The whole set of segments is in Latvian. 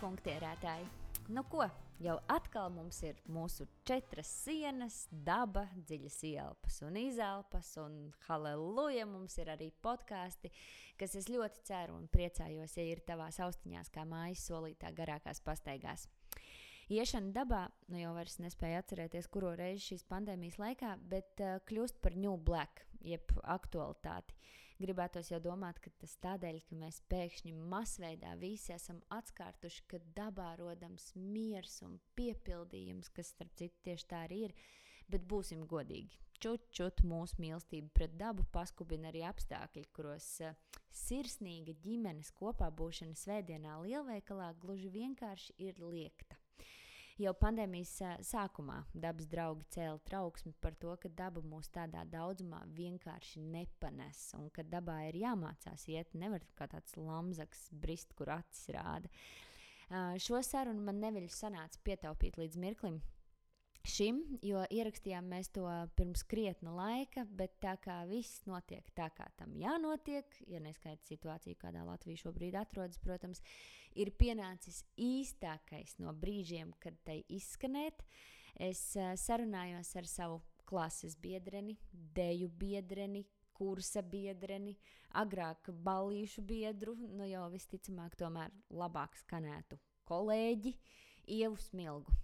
funktierētāji! Nu ko, jau atkal mums ir mūsu 4 sienas, daba, dziļas ielpas un izelpas, un halleluja, mums ir arī podkāsti, kas es ļoti ceru un priecājos, ja ir tavās austiņās kā mājas solītā garākās pastaigās. Iešana dabā, nu jau vairs nespēju atcerēties, kuro reizi šīs pandēmijas laikā, bet kļūst par new black, jeb aktualitāti. Gribētos jau domāt, ka tas tādēļ, ka mēs pēkšņi masveidā visi esam atskārtuši, ka dabā rodams miers un piepildījums, kas starp citu tieši tā arī ir, bet būsim godīgi. Čut mūsu mīlestību pret dabu paskubina arī apstākļi, kuros sirsnīga ģimenes kopā būšana svētdienā lielveikalā gluži vienkārši ir liekta. Jau pandēmijas sākumā dabas draugi cēla trauksmi par to, ka daba mūs tādā daudzumā vienkārši nepanes un ka dabā ir jāmācās iet, nevar kā tāds lamzaks brist, kur acis rāda. Šo sarunu man neviļus sanāca pietaupīt līdz mirklim šim, jo ierakstījām mēs to pirms krietna laika, bet tā kā viss notiek tā, kā tam jānotiek, ja neskaita situāciju, kādā Latvija šobrīd atrodas, protams, ir pienācis īstākais no brīžiem, kad tai izskanēt. Es sarunājos ar savu klases biedreni, deju biedreni, kursa biedreni, agrāk ballīšu biedru, nu jau visticamāk tomēr labāk skanētu kolēģi Ievu Smilgu.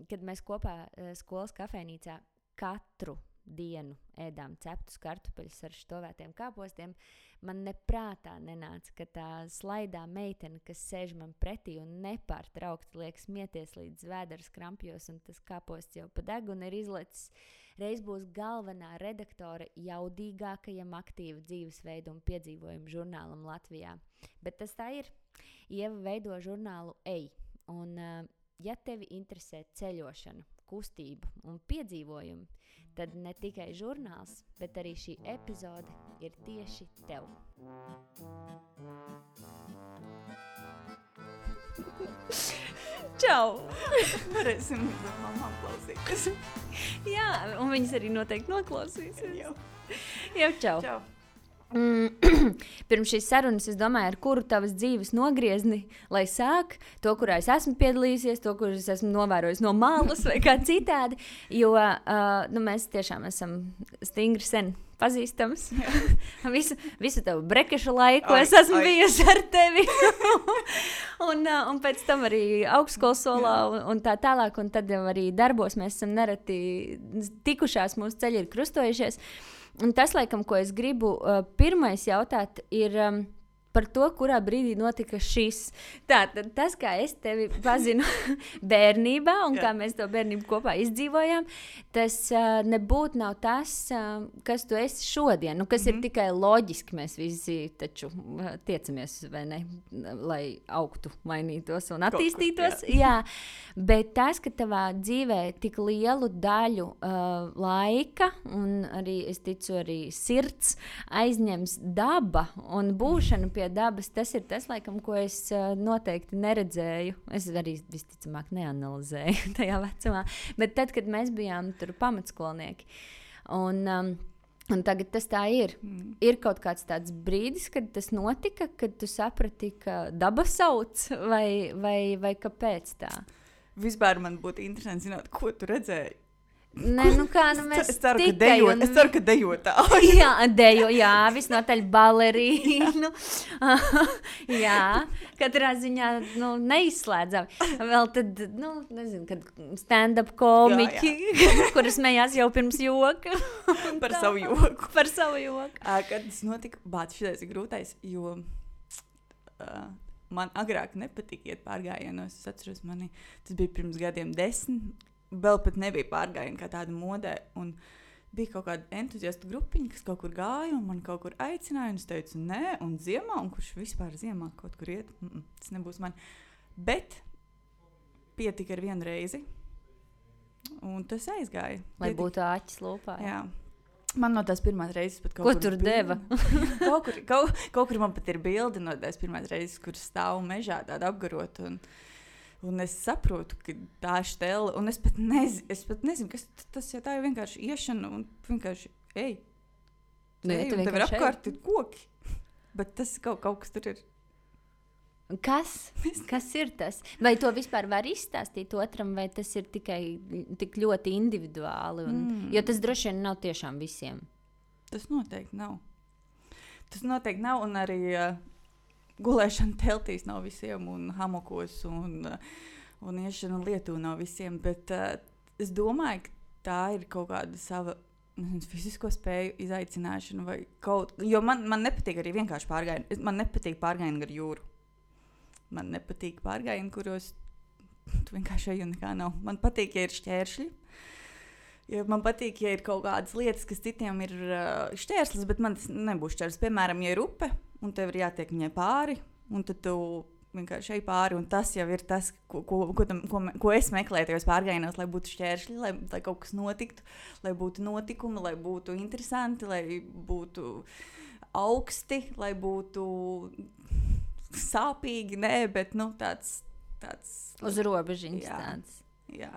Kad mēs kopā skolas kafejnīcā katru dienu ēdām ceptus kartupeļus ar štovētiem kāpostiem, man neprātā nenāca, ka tā slaidā meitene, kas sēž man pretī un nepārtraukti liek smieties līdz vēders krampjos un tas kāposts jau pa degunu ir izlecis, reiz būs galvenā redaktore jaudīgākajam aktīvu dzīvesveidu un piedzīvojumu žurnālam Latvijā. Bet tas tā ir. Ieva veido žurnālu Ej. Un ja tevi interesē ceļošana, kustība un piedzīvojumi, tad ne tikai žurnāls, bet arī šī epizode ir tieši tev. Čau! Varēsim mamām klausīties. Jā, un viņas arī noteikti noklausīsies. Jau čau! Čau! Pirms šīs sarunas es domāju, ar kuru tavas dzīves nogriezni, lai sāk, to, kurā es esmu piedalījusies, to, kur es esmu novērojis no malas vai kā citādi, jo mēs tiešām esam stingri sen pazīstams. visu tavu brekešu laiku es esmu bijusi ar tevi. un pēc tam arī augstskolas solā un tā tālāk, un tad jau arī darbos mēs esam nereti tikušās, mūsu ceļi ir krustojušies. Un tas, laikam, ko es gribu pirmais jautāt, ir par to, kurā brīdī notika šis. Tātad tas, kā es tevi pazinu bērnībā un kā mēs to bērnību kopā izdzīvojām, tas nebūtu nav tas, kas tu esi šodien. Nu, kas ir tikai loģiski, mēs visi taču tiecamies, vai ne, lai augtu, mainītos un attīstītos. Jā. Bet tas, ka tavā dzīvē tik lielu daļu laika un arī, es ticu, arī sirds aizņems daba un būšana pie dabas, tas ir tas, laikam, ko es noteikti neredzēju. Es arī visticamāk neanalizēju tajā vecumā. Bet tad, kad mēs bijām tur pamatskolnieki. Un tagad tas tā ir. Ir kaut kāds tāds brīdis, kad tas notika, kad tu saprati, ka daba sauc, vai kāpēc tā? Vispār man būtu interesanti zināt, ko tu redzēji. Nē, nu kā, nu mēs es ceru, ka dejotāji. Jā, visnotaļ balerīnu. Jā, katrā ziņā, neizslēdzam. Vēl tad, nezinu, kad stand-up komiķi, kuras smējās jau pirms joka. Par savu joku. Par savu joku. Kad tas notika, šitais ir grūtais, jo man agrāk nepatika iet pārgājienos. Es atceros tas bija pirms gadiem 10. Vēl pat nebija pārgājieni kā tāda modē, un bija kaut kāda entuziastu grupiņa, kas kaut kur gāja, un man kaut kur aicināja, un es teicu, nē, un ziemā, un kurš vispār ziemā kaut kur iet, tas nebūs man. Bet pietika ar vienu reizi, un tas aizgāja. Lai būtu āķis lūpā. Jā. Man no tās pirmās reizes pat kaut kur tur deva? kaut kur man pat ir bildi no tās pirmās reizes, kur stāv mežā tāda apgarot, un es saprotu, ka tā štela, un es pat nezinu, kas tas, ja tā ir vienkārši iešana, un vienkārši, ej, un tev ir apkārt ir koki, bet tas kaut kas tur ir. Kas ir tas? Vai to vispār var izstāstīt otram, vai tas ir tikai tik ļoti individuāli? Jo tas droši vien nav tiešām visiem. Tas noteikti nav. Un arī gulēšana teltīs nav visiem, un hamokos, un iešana lietū nav visiem. Bet es domāju, ka tā ir kaut kāda sava fizisko spēju izaicināšana. Jo man nepatīk arī vienkārši pārgājieni. Man nepatīk pārgājieni gar jūru. Man nepatīk pārgājieni, kuros tu vienkārši ej un nekā nav. Man patīk, ja ir šķēršļi. Ja man patīk, ja ir kaut kādas lietas, kas citiem ir šķērslis, bet man tas nebūs šķērslis. Piemēram, ja ir upe, un tev ir jātiek viņai pāri, un tad tu vienkārši ej pāri, un tas jau ir tas, ko es meklēju tajos pārgājienos, lai būtu šķēršļi, lai kaut kas notiktu, lai būtu notikumi, lai būtu interesanti, lai būtu augsti, lai būtu sāpīgi, bet tāds uz robežiņas tāds. Jā.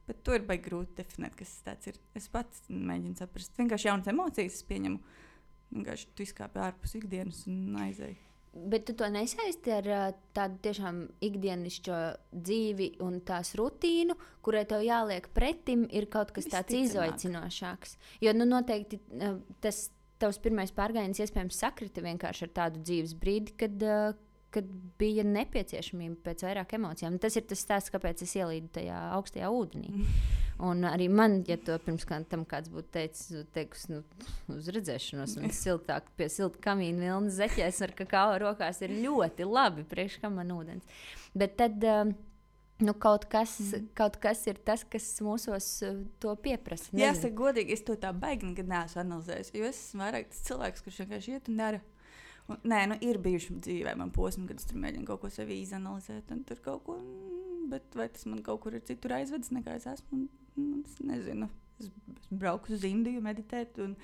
Bet to ir baigi grūti definēt, kas tas ir. Es pats mēģinu saprast. Vienkārši jaunas emocijas es pieņemu. Vienkārši tu izkāpi ārpus ikdienas un aizēji. Bet tu to nesaisti ar tādu tiešām ikdienišķo dzīvi un tās rutīnu, kurai tev jāliek pretim, ir kaut kas tāds izaicinošāks. Jo noteikti tas tavs pirmais pārgājiens iespējams sakrita vienkārši ar tādu dzīves brīdi, kad bija nepieciešamība pēc vairāk emocijām. Tas ir tas stāsts, kāpēc es ielīdu tajā augstajā ūdenī. Un arī man, ja to pirms tam kāds būtu teicis, uz redzēšanos un siltāk pie silta kamīna vilnas zeķēs ar kakao rokās ir ļoti labi, priekš kam man ūdens. Bet tad kaut kas ir tas, kas mūsos to pieprasa. Jāsaka godīgi, es to tā baigi nekad neesmu analizējis, jo es esmu vairāk tas cilvēks, kurš vienkārši iet un dara. Ir bijuši dzīvē man posmi, kad es tur mēģinu kaut ko sevi izanalizēt, un tur kaut ko, bet vai tas man kaut kur ir citur aizvedis, nekā es esmu, es nezinu. Es brauku uz Indiju meditēt un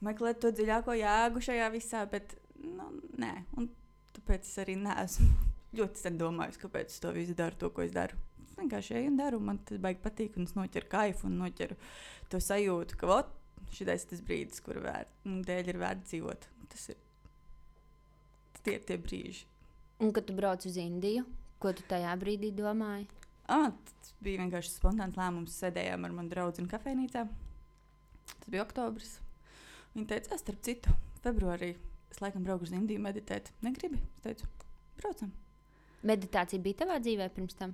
meklēt to dziļāko jēgu šajā visā, bet, nē, un tāpēc es arī neesmu ļoti sen domājis, kāpēc es to visu daru, to, ko es daru. Es vienkārši eju un daru, man tas baigi patīk, un es noķeru kaifu un noķeru to sajūtu, ka, šitais tas brīdis, kuru dēļ ir vērts dzīvot. Tie ir tie brīži. Un kad tu brauc uz Indiju, ko tu tajā brīdī domāji? Tas bija vienkārši spontāns lēmums. Sēdējām ar manu draugu kafejnīcā. Tas bija oktobris. Viņa teica, starp citu, februārī es laikam braucu uz Indiju meditēt. Negribi? Es teicu, braucam. Meditācija bija tavā dzīvē pirms tam?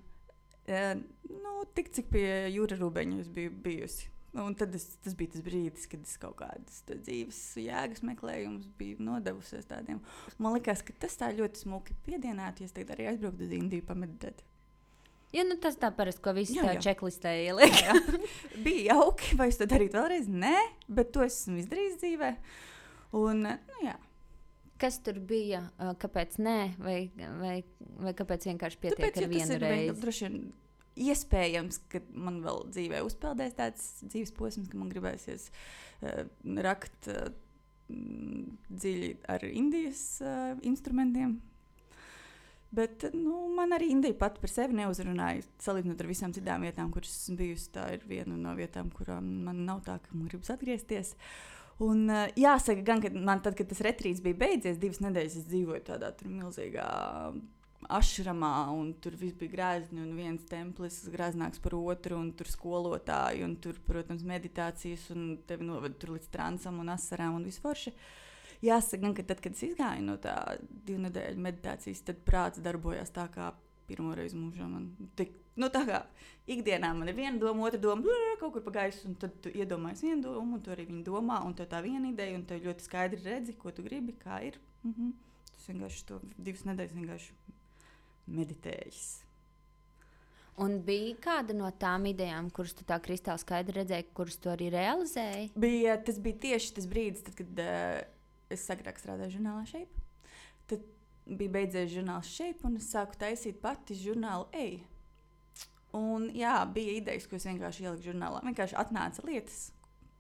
Tik cik pie Jūra Rūbeņa es biju bijusi. Un tad tas bija tas brīdis, kad es kaut kādas dzīves jēgas meklējumus biju nodevusies tādiem. Man likās, ka tas tā ļoti smuki piedienētu, ja es tagad arī aizbrauktu uz Indiju pameditēt. Ja, tas tā parasti, ko visi tā čeklistē ieliek. Jā. Bija jauki, vai es to darītu vēlreiz? Nē, bet to esmu izdarījis dzīvē. Un, jā. Kas tur bija? Kāpēc nē? Vai kāpēc vienkārši pietiek ar vienu reizi? Droši vien iespējams, ka man vēl dzīvē uzpeldēs tāds dzīves posms, ka man gribēsies rakt dziļi ar Indijas instrumentiem. Bet man arī Indija pat par sevi neuzrunāja. Salīdzinot ar visām citām vietām, kuras esmu bijusi, tā ir viena no vietām, kurām man nav tā, ka man gribas atgriezties. Un jāsaka gan, ka man tad, kad tas retrīts bija beidzies, 2 nedēļas es dzīvoju tādā tur milzīgā ašramā, un tur viss bija grēzni, un viens templis grēznāks par otru, un tur skolotāji, un tur, protams, meditācijas, un tevi noved tur līdz transam un asarām un visu forši. Jāsaka gan, ka tad, kad es izgāju no tā 2 nedēļu meditācijas, tad prāts darbojās tā kā pirmoreiz mūžā. Tā kā ikdienā man ir viena doma, otra doma, kaut kur pa gaisu, un tad tu iedomājies vienu domu, un tu arī viņu domā, un tev tā viena ideja, un tev ļoti skaidri redzi, ko tu gribi, kā ir. Tas vienkārši to 2 nedēļas vienkārši meditējis. Un bija kāda no tām idejām, kuras tu tā kristāli skaidri redzēji, kuras tu arī realizēji? Tas bija tieši tas brīdis, tad, kad es agrāk strādāju žurnālā Shape. Tad bija beidzies žurnāls Shape, un es sāku taisīt pati žurnālu Ej. Un jā, bija idejas, ko es vienkārši ieliku žurnālā. Vienkārši atnāca lietas.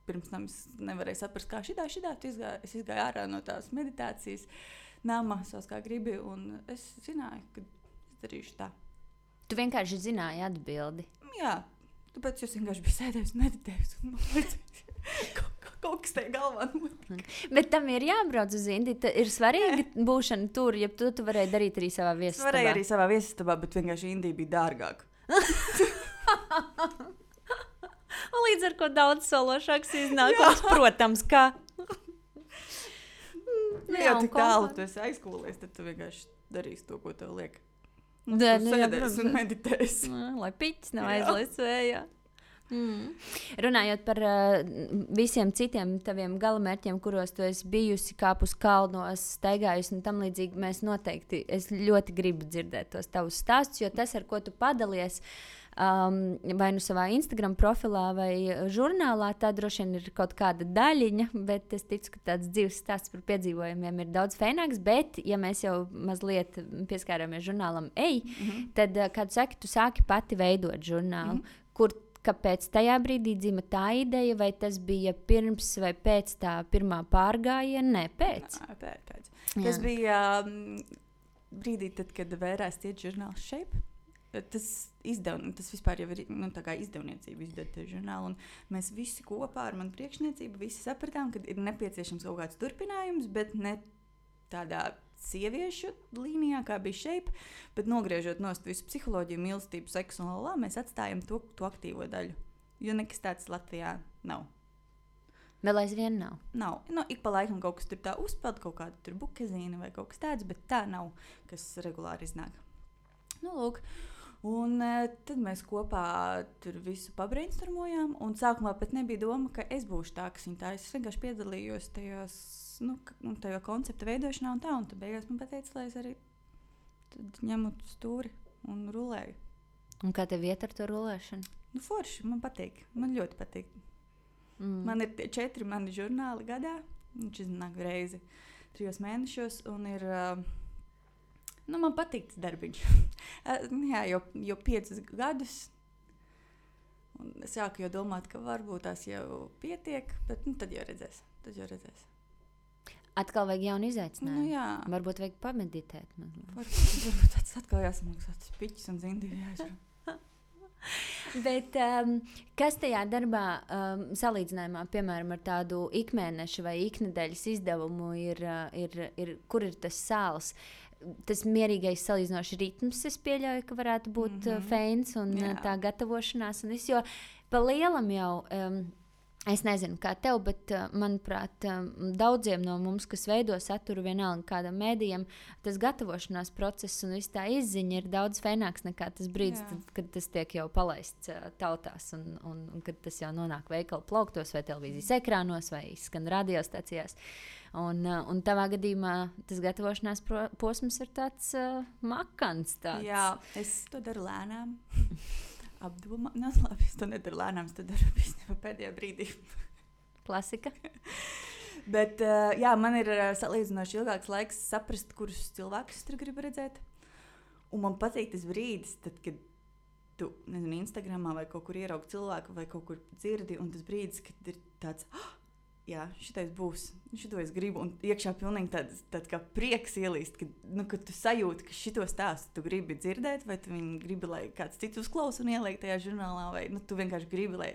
Pirms tam es nevarēju saprast, kā šitā. Es izgāju ārā no tās meditācijas nama, savs kā gribi, un es zināju, ka es darīšu tā. Tu vienkārši zināji atbildi. Jā, tāpēc es vienkārši biju sēdējis un meditējis. Un kaut kas tajā galvā notika. Bet tam ir jābrauc uz Indiju. Ir svarīgi būšana tur, ja tu varēji darīt arī savā viesistabā. Varēja arī savā viesistabā, bet vienkārši Indija bija dārgāka. Un līdz ar ko daudz sološāks iznākums, protams, kā. Ja tik tālu tu esi aizkūlies, tad tu vienkārši darīsi to, ko tev liek. Un Jā, tu sēdēsi un meditēsi. Lai piķis nav aizlaists vējā. Runājot par visiem citiem taviem galamērķiem, kuros tu esi bijusi, kāpus kalnos, staigājusi un tam līdzīgi, mēs noteikti, es ļoti gribu dzirdēt tos tavus stāstus, jo tas, ar ko tu padalies, vai nu savā Instagram profilā vai žurnālā, tā droši vien ir kaut kāda daļiņa, bet es ticu, ka tāds dzīves stāsts par piedzīvojumiem ir daudz fēnāks, bet, ja mēs jau mazliet pieskārāmies žurnālam tad, kā tu saki, tu sāki pati veidot žurnālu, kāpēc tajā brīdī dzima tā ideja, vai tas bija pirms vai pēc tā pirmā pārgājiena? Nē, pēc. Pēc. Tas bija brīdī, tad, kad vērās tiet žurnāls Shape. Tas vispār jau ir tā kā izdevniecība izdot žurnālu, un mēs visi kopā ar manu priekšniecību visi sapratām, ka ir nepieciešams kaut kāds turpinājums, bet ne tādā sieviešu līnijā, kā bija Shape, bet nogriežot nost visu psiholoģiju, mīlestību, seksu un lalā, mēs atstājam to aktīvo daļu, jo nekas tāds Latvijā nav. Vēl aizvien nav? Nav. Ik pa laikam kaut kas tur tā uzpeld, kaut kāda tur bukezīna vai kaut kas tāds, bet tā nav, kas regulāri iznāk. Lūk. Un tad mēs kopā tur visu pabrainstormojām, un sākumā pat nebija doma, ka es būšu tā, kas viņa tā. Es vienkārši piedalījos tajā koncepta veidošanā un tā, un tad beigās man pateica, lai es arī ņemu stūri un rulēju. Un kā tev iet ar to rulēšanu? Forši, man patīk, man ļoti patīk. Man ir 4 mani žurnāli gadā, viņš iznāk reizi 3 mēnešos, un ir... man patīk tas darbiņš. Jā, jau 5 gadus. Un es sāku jau domāt, ka varbūt tās jau pietiek, bet tad jau redzēs. Atkal vajag jaunu izaicinājumu. Jā. Varbūt vajag pameditēt. Varbūt tāds atkal jāsamaksā tas piķis un zindīgi jāizrunā. Bet kas tajā darbā salīdzinājumā, piemēram, ar tādu ikmēneša vai iknedēļas izdevumu kur ir tas sāls? Tas mierīgais salīdzinoši ritms, es pieļauju, ka varētu būt feins un tā gatavošanās. Un jo pa lielam jau, es nezinu, kā tev, bet, manuprāt, daudziem no mums, kas veido saturu vienalga kādam mēdījam, tas gatavošanās process un viss tā izziņa ir daudz feināks nekā tas brīdis, kad tas tiek jau palaists tautās un kad tas jau nonāk veikalu plauktos vai televīzijas ekrānos vai skan radiostacijās. Un tavā gadījumā tas gatavošanās posms ir tāds makants. Jā, es to daru lēnām. Apdomā. Labi, es to nedaru lēnām, es to daru pēdējā brīdī. Klasika. Bet jā, man ir salīdzinoši ilgāks laiks saprast, kurus cilvēkus es tur gribu redzēt. Un man patīk tas brīdis, tad, kad tu, nezinu, Instagramā vai kaut kur ieraugi cilvēku vai kaut kur dzirdi, un tas brīdis, kad ir tāds... Jā, šitais būs, šito es gribu, un iekšā pilnīgi tāds kā prieks ielīst, kad tu sajūti, ka šito stāstu tu gribi dzirdēt, vai tu viņu gribi, lai kāds cits uzklausa un ieliek tajā žurnālā, vai tu vienkārši gribi, lai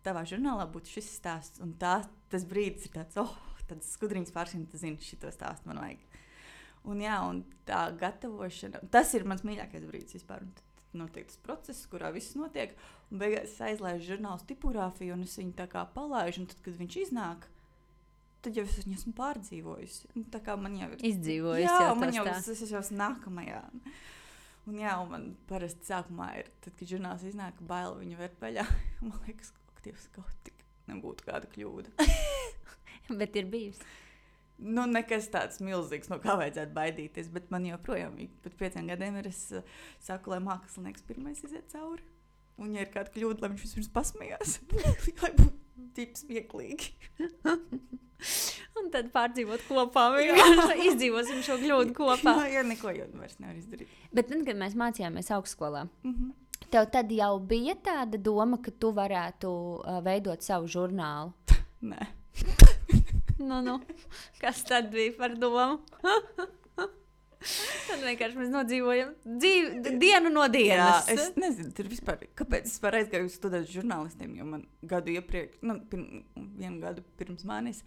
tavā žurnālā būtu šis stāsts, un tas brīdis ir tāds, tāds skudriņas pārsim, tu zini, šito stāstu man vajag. Un jā, un tā gatavošana, tas ir mans mīļākais brīdis vispār, un notiek tas process, kurā viss notiek, un beigās es aizlaižu žurnālu tipogrāfiju, un es viņu tā kā palaižu, un tad, kad viņš iznāk, tad jau es viņu esmu pārdzīvojusi. Un tā kā man jau ir... Izdzīvojusi jā, jau man tas jau tā. es jau esmu nākamajā. Un jā, un man parasti sākumā ir, tad, kad žurnāls iznāk, baila viņu vērt vaļā. Man liekas, kaut tik nebūtu kāda kļūda. Bet ir bijusi. Nekas tāds milzīgs, no kā vajadzētu baidīties, bet man joprojām, pēc 5 gadiem es saku, lai mākslinieks pirmais iziet cauri. Un, ja ir kāda kļūda, lai viņš vispirms pasmējās, lai būtu tips smieklīgi. Un tad pārdzīvot kopā, izdzīvosim šo kļūdu kopā. Jā, neko jau vairs nevar izdarīt. Bet tad, kad mēs mācījāmies augstskolā, tev tad jau bija tāda doma, ka tu varētu veidot savu žurnālu? Nē. Nu, kas tad bija par domu? Tad vienkārši mēs nodzīvojam dienu no dienas. Jā, es nezinu, tur vispār, kāpēc es vispār aizgāju studēt žurnālistiem, jo man gadu iepriekš, vienu gadu pirms manis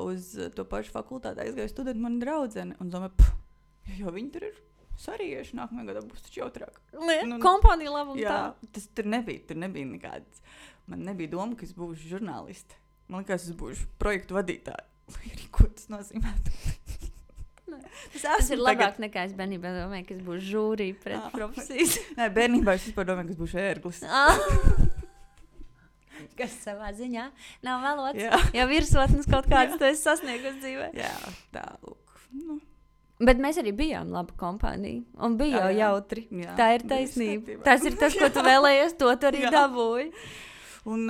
uz to pašu fakultāti aizgāju studēt mani draudzeni un domāju, jo viņi tur ir sarieši, nākamajā gadā būs taču jautrāk. Kompānija labums jā, tas tur nebija nekāds. Man nebija doma, ka es būšu žurnāliste. Man liekas, es būšu projektu vadītāja. Lai arī ko tas nozīmētu. Tas ir labāk nekā es bērnībā domāju, ka es būšu žūrī pret profesijas. Nē, bērnībā es vispār domāju, ka es būšu ērglis. Kas savā ziņā nav valots. Ja virsotnes kaut kāds tu esi sasniegus dzīvē. Jā, tā, lūk. Nu. Bet mēs arī bijām laba kompānija. Un bija jau jautri. Jā, tā ir taisnība. Tas ir tas, ko tu vēlējies, to tu arī dabūji. Un,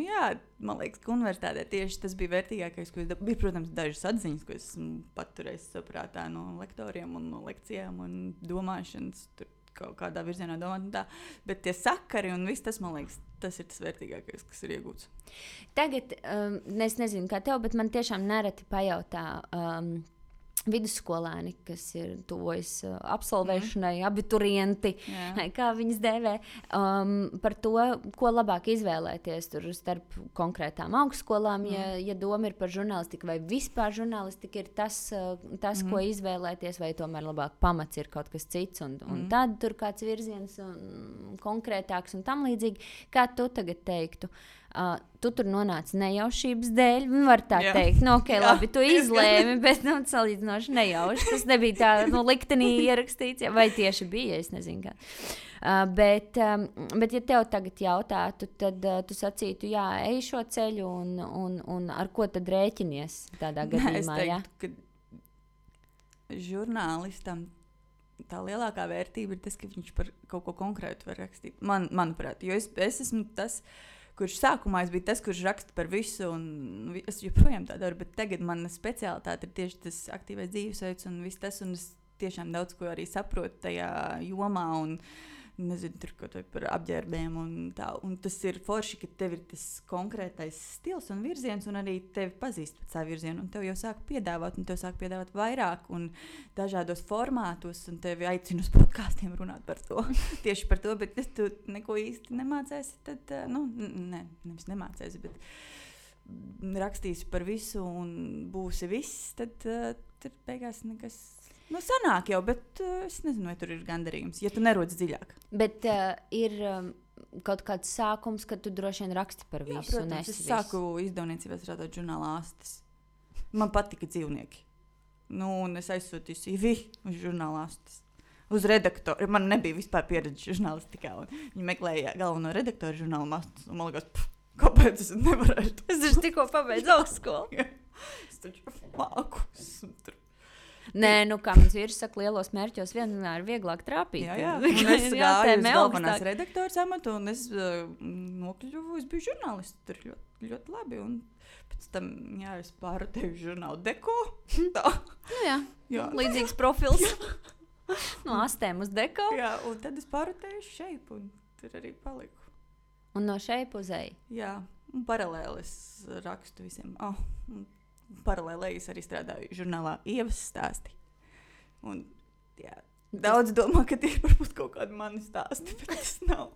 jā, man liekas, ka universitātē tieši tas bija vērtīgākais, ko es dabūju. Bija, protams, dažas atziņas, ko esmu paturējis saprātā no lektoriem un no lekcijām un domāšanas, tur kaut kādā virzienā domāt un tā. Bet tie sakari un viss tas, man liekas, tas ir tas vērtīgākais, kas ir iegūts. Tagad, es nezinu, kā tev, bet man tiešām nereti pajautā vidusskolēni, kas ir tuvojas absolvēšanai, abiturienti, kā viņas dēvē, par to, ko labāk izvēlēties tur starp konkrētām augstskolām, ja doma ir par žurnālistiku, vai vispār žurnālistika ir tas ko izvēlēties, vai tomēr labāk pamats ir kaut kas cits, un tad tur kāds virziens konkrētāks un tam līdzīgi. Kā tu tagad teiktu? Tu tur nonāci nejaušības dēļ, var tā teikt, labi, tu izlēmi, bet salīdzinoši nejauši. Tas nebija tā liktenī ierakstīts, vai tieši bija, es nezinu kā. Bet ja tev tagad jautātu, tad tu sacītu, ej šo ceļu un ar ko tad rēķinies tādā gadījumā? Es teiktu, ka žurnālistam tā lielākā vērtība ir tas, ka viņš par kaut ko konkrētu var rakstīt. Manuprāt, jo es esmu tas, kurš sākumā es biju tas, kurš raksta par visu, un es joprojām tā daru, bet tagad mana speciālitāte ir tieši tas aktīvais dzīvesveids un viss tas, un es tiešām daudz ko arī saprotu tajā jomā, un nezinu, tur kaut vai par apģērbiem un tā, un tas ir forši, ka tev ir tas konkrētais stils un virziens, un arī tevi pazīst pēc tā virziena, un tev jau sāk piedāvāt, un tev sāk piedāvāt vairāk, un dažādos formātos, un tevi aicina uz podkāstiem runāt par to, tieši par to, bet tu neko īsti nemācēsi, tad, nevis nemācēsi, bet rakstīsi par visu, un būsi viss, tad tur beigās nekas... sanāk jau, bet es nezinu, vai tur ir gandarījums, ja tu nerodas dziļāk. Bet ir kaut kāds sākums, kad tu droši vien raksti par visu. Jā, protams, es sāku izdevniecībā strādāt žurnālā Astes. Man patika dzīvnieki. Un es aizsūtīju CV uz žurnālā Astes. Uz redaktoru. Man nebija vispār pieredze žurnālistikā. Viņi meklēja galveno redaktoru žurnālā Astes. Un man liekas, kāpēc es nevarēšu? Es taču tikko pabeidzu augstskolu. Es taču māku. Nē, kā mans vīrs saka, lielos mērķos vienmēr ir vieglāk trāpīt. Jā. Un es gāju uz galvenās redaktoras amatu, un es nokļuvu, es biju žurnālists. Tur ļoti, ļoti labi. Un pēc tam, es pārotēju žurnālu Deko. Tā. Jā. Līdzīgs profils. No Astēm uz Deko. Jā, un tad es pārotēju Šeipu, un tur arī paliku. Un no Šeipu uz Eju? Jā, un paralēli es rakstu visiem. Paralēli es arī strādāju žurnālā Ievas stāsti. Un, daudz domā, ka tie varbūt kaut kādi mani stāsti, bet tas nav.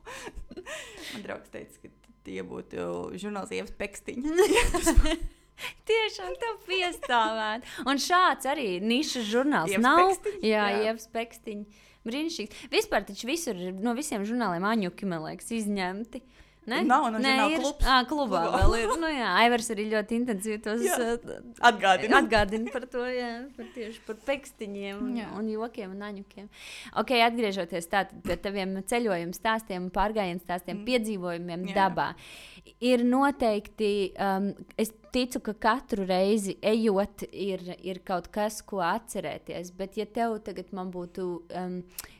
Man draugs teica, ka tie būtu žurnāls Ievas pekstiņi. Tiešām tev piestāvēt. Un šāds arī nišas žurnāls Ievas nav. Pekstiņi? Jā, Ievas pekstiņi. Brīnišķīgs. Vispār taču visur no visiem žurnāliem aņuki, man liekas, izņemti. Ne? Nav klubs. Klubā vēl ir. Aivars arī ļoti intensīvi tos atgādina par to, tieši par pekstiņiem un jokiem un aņukiem. Ok, atgriežoties tātad pie taviem ceļojumu stāstiem, pārgājienu stāstiem, piedzīvojumiem dabā. Ir noteikti, es ticu, ka katru reizi ejot ir kaut kas, ko atcerēties, bet ja tev tagad man būtu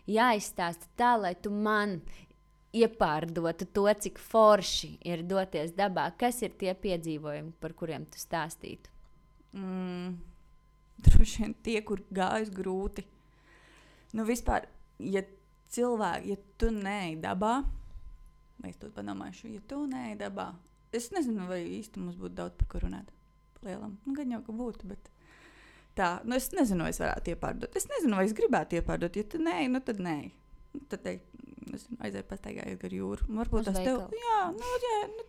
jāizstāsta tā, lai tu man iepārdotu to, cik forši ir doties dabā. Kas ir tie piedzīvojumi, par kuriem tu stāstītu? Droši vien tie, kur gājas grūti. Vispār, ja tu neej dabā, vai es to padomāšu, ja tu neej dabā, es nezinu, vai īsti mums būtu daudz par ko runāt. Lielam. Gan jau, ka būtu, bet Tā, es nezinu, vai es varētu iepārdot. Es nezinu, vai es gribētu iepārdot. Ja tad nē, tad nē. Tad teikt, aizēju pastaigājies gar jūru. Varbūt tas tev,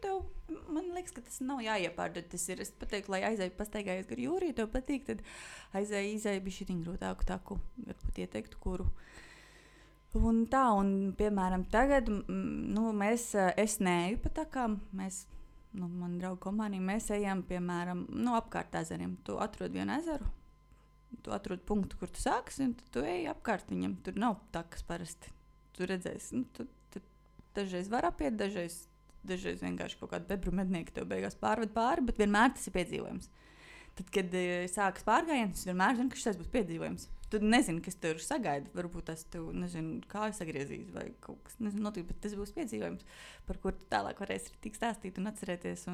tev, man liekas, ka tas nav jāiepārdot. Tas ir, es pateiktu, lai aizēju pastaigājies gar jūru, ja tev patīk, tad izēju bišķiņ grūtāku taku. Varbūt ieteiktu, kuru. Un tā, piemēram, tagad, es neeju pa takām, man draugu kompānija, mēs ejam, piemēram, apkārt ezeriem. Tu atrod vienu ezeru, tu atrod punktu, kur tu sāksi, un tu ej apkārt viņam. Tur nav takas parasti. Tu redzēsi, tu dažreiz var apiet, dažreiz vienkārši kaut kādu bebru mednieku tev beigās pārved pāri, bet vienmēr tas ir piedzīvojums. Tad, kad sākas pārgājiens, es vienmēr zinu, ka šis būs piedzīvojums. Tu nezini, kas tev sagaida. Varbūt tas tev, kā sagriezīs vai kaut kas, notiek, bet tas būs piedzīvojums, par kur tu tālāk varēsi tik stāstīt un atcerēties.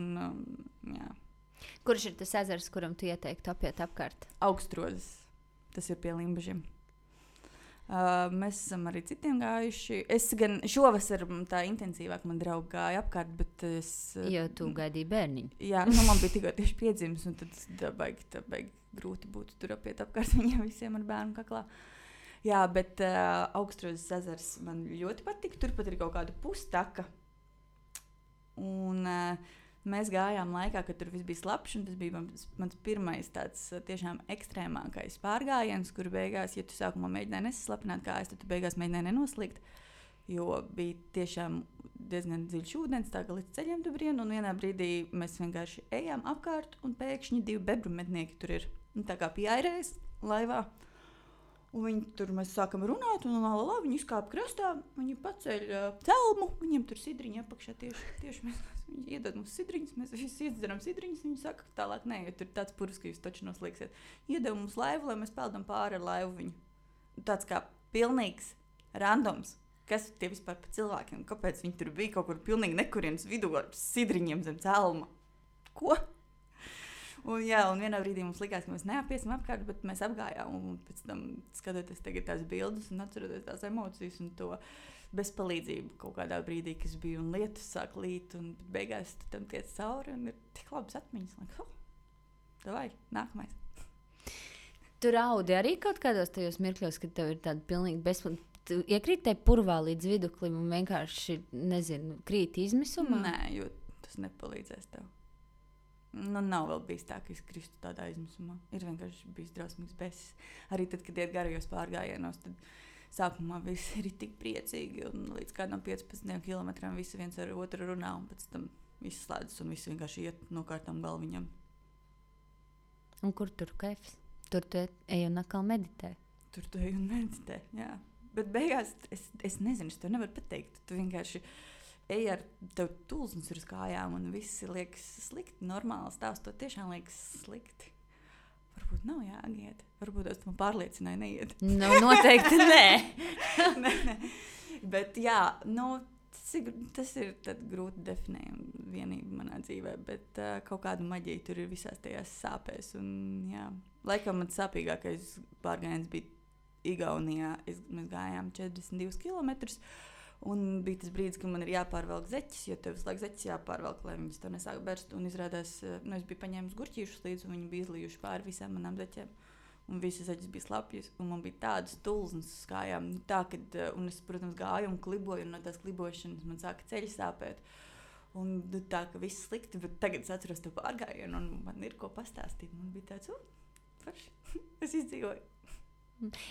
Jā. Kurš ir tas ezers, kuram tu ieteiktu apiet apkārt? Augstrozes. Tas ir pie Limbažiem. Mēs esam arī citiem gājuši. Es gan šovasar tā intensīvāk man draugi gāja apkārt, bet es... Jo tu gaidīji bērniņu. Jā, man bija tikko tieši piedzimis, un tad tā baigi grūti būtu tur apiet apkārt viņiem visiem ar bērnu kaklā. Jā, bet Augstrozes ezers man ļoti patika. Turpat ir kaut kāda pustaka. Un mēs gājām laikā, kad tur viss bija slapjš, un tas bija mans pirmais tāds tiešām ekstrēmākais pārgājiens, kur beigās, ja tu sākumā mēģināji nesaslapināt kājas, tad tu beigās mēģināji nenoslīgt, jo bija tiešām diezgan dziļš ūdens, tā kā līdz ceļiem tu brien, un vienā brīdī mēs vienkārši ejām apkārt, un pēkšņi 2 bebru mednieki tur ir. Un tā kā pieairēs laivā, un viņi tur mēs sākam runāt, un viņi izkāpa krastā, viņi paceļ celmu, viņiem tur sidriņi apakšā tieši mēs. Viņi iedod mums sidriņus, mēs visi iedzeram sidriņus, viņi saka, ka tālāk nē, jo tur tāds purvs, ka jūs taču noslīksiet. Iedod mums laivu, lai mēs peldam pāri ar laivu viņu. Tāds kā pilnīgs randoms. Kas tie vispār pa cilvēkiem? Kāpēc viņi tur bija kaut kur pilnīgi nekurienes vidū ar sidriņiem zem celma? Ko? Un vienā brīdī mums likās, ka mēs neapiesim apkārt, bet mēs apgājām. Un pēc tam skatoties tagad tās bildes un atceroties tās emocijas un to bezpalīdzību kaut kādā brīdī, kas bija un lietus sāk līt. Un beigās tu tam tiec cauri un ir tik labas atmiņas. Davai, nākamais. Tu raudi arī kaut kādos tajos mirkļos, kad tev ir tāda pilnīgi bezpalīdzība. Tu iekrīt te purvā līdz viduklim un vienkārši, krīt izmisumā? Nē, jo tas nepalīdzēs tev. Nav vēl bijis tā, ka es kristu tādā izmisumā. Ir vienkārši bijis drausmīgs besis. Arī tad, kad iet garajos pārgājienos, tad sākumā visi ir tik priecīgi un līdz kādam 15 kilometriem visi viens ar otru runā un pēc tam viss slēdzas un visi vienkārši iet no kārtām galviņam. Un kur tur kaifs? Tur tu ej un atkal meditē. Tur tu ej un meditē, jā. Bet beigās es nezinu, es tev nevaru pateikt. Tu vienkārši ej ar tev tulsnes uz kājām un viss liekas slikti. Normāli stāstot tiešām liekas slikti. Varbūt nav jāiet. Varbūt es man pārliecināju neiet. Noteikti nē. Nē. Bet jā, tas ir grūti definējama vienība manā dzīvē, bet kaut kāda maģija tur ir visās tajās sāpēs. Un, jā, laikam man sāpīgākais pārgājiens bija Igaunijā. Mēs gājām 42 kilometrus. Un bija tas brīdis, kad man ir jāpārvelk zeķis, jo tev visu laiku zeķis jāpārvelk, lai viņas to nesāk berst. Un izrādās, es biju paņēmis gurķīšus līdzi, un viņi bija izlījuši pāri visām manām zeķiem. Un visas zeķis bija slapjas, un man bija tādas tulznes uz kājām. Un es, protams, gāju un kliboju, un no tās klibošanas man sāka ceļi sāpēt. Un tā, ka viss slikti, bet tagad es atceros to pārgājienu, un man ir ko pastāstīt. Man bija tāds, forši, es izdzīvoju.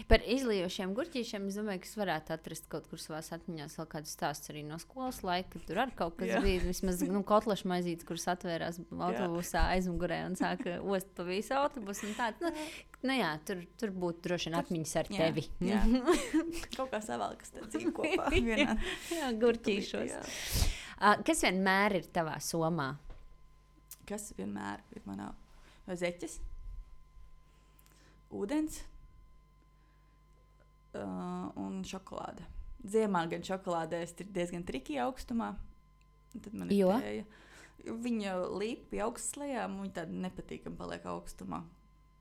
Par izlījošiem gurķīšiem es domāju, ka es varētu atrast kaut kur savās atmiņās vēl kādu stāstu arī no skolas laika, kad tur arī kaut kas bija. Vismaz kotlešu maizītes, kuras atvērās autobusā aizmugurē un sāka ost pa visu autobusu. Tur būtu droši vien atmiņas ar tevi. Jā. Kaut kā savalkas tā dzīve kopā vienā. Jā, gurķīšos. Kas vienmēr ir tavā somā? Kas vienmēr ir manā zeķes? Ūdens. Un šokolāde. Ziemā gan šokolādē ir diezgan triki augstumā. Tad man ir tēja. Viņa līp pie augstas lejām, un viņa tāda nepatīkam paliek augstumā.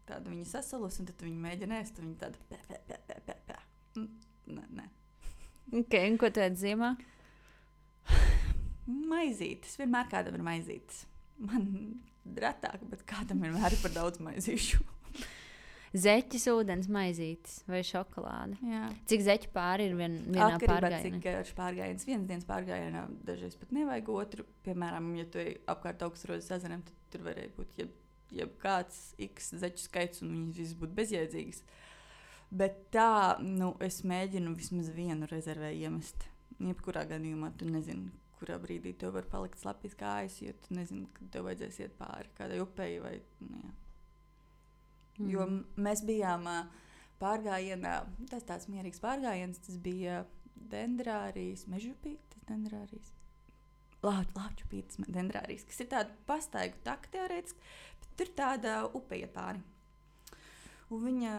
Tāda viņa sasalus, un tad viņa mēģina ēst, un viņa tāda Nē. Ok, un ko tu ēd ziemā? Maizītes. Vienmēr kādam ir maizītes. Man retāk, bet kādam vienmēr ir par daudz maizīšu. Zeķis, ūdens maizītes vai šokolāde. Jā. Cik zeķu pāri ir vienā pārgājienā? Cik garš pārgājiens. Vienas dienas pārgājienā dažreiz pat nevajag otru. Piemēram, ja tu ej apkārt Augstrozes ezeram, tad tur varēja būt jebkāds x zeķu skaits un viņas visas būtu bezjēdzīgas. Bet tā, es mēģinu vismaz vienu rezervē iemest. Jebkurā gadījumā tu nezini, kurā brīdī tev var palikt slapjas kājas, jo tu nezini, kad tev vajadzēs iet pāri kādai upei vai, jā. Jo mēs bijām pārgājienā, tas tāds mierīgs pārgājiens, tas bija Dendrārijas, Mežupītes Dendrārijas, Lāčupītes Dendrārijas, kas ir tāda pastaigu taka teorētiski, bet tur tāda upe iet pāri. Un viņa...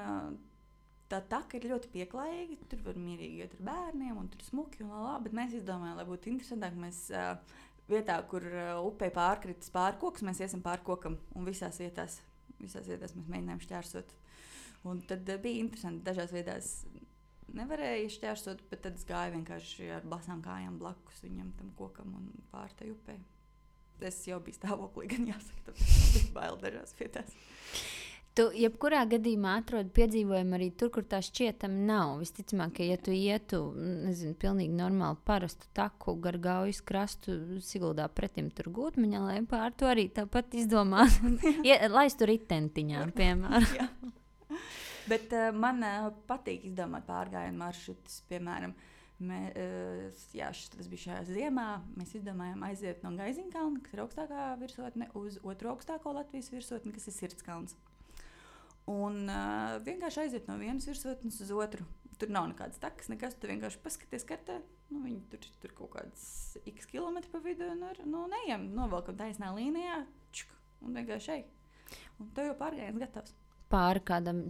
Tā taka ir ļoti pieklājīga, tur var mierīgi iet ar bērniem, un tur smuki un lā, bet mēs izdomājām, lai būtu interesantāk, mēs vietā, kur upei pārkritis pārkoks, mēs iesim pārkokam, un visās vietās mēs mēģinājām šķērsot. Un tad bija interesanti, dažās vietās nevarēja šķērsot, bet tad es gāju vienkārši ar basām kājām blakus viņam tam kokam un pār tai upei. Es jau biju stāvoklī, gan jāsaka, tāpēc bija bail dažās vietās. Tu jebkurā gadījumā atrodi piedzīvojumu arī tur, kur tā šķietami nav. Visticamāk, ka ja tu ietu, nezinu, pilnīgi normāli parastu taku gar Gaujas krastu Siguldā pretim tur Gūtmaņā, lai pār to arī tāpat izdomāt. Laistu ritentiņā, piemēram. Bet man patīk izdomāt pārgājienu maršrutus, piemēram. Tas bija šajā ziemā. Mēs izdomājām aiziet no Gaiziņkalna, kas ir augstākā virsotne, uz otru augstāko Latvijas virsotni, kas ir Sirdskalns. Un vienkārši aiziet no vienas virsotnes uz otru. Tur nav nekādas takas, nekas. Tu vienkārši paskaties kartē. Viņi tur kaut kāds x kilometri pa vidu un ejam, novelkam taisnā līnijā un vienkārši ej. Un tev jau pārgājiens gatavs. Pāri kādam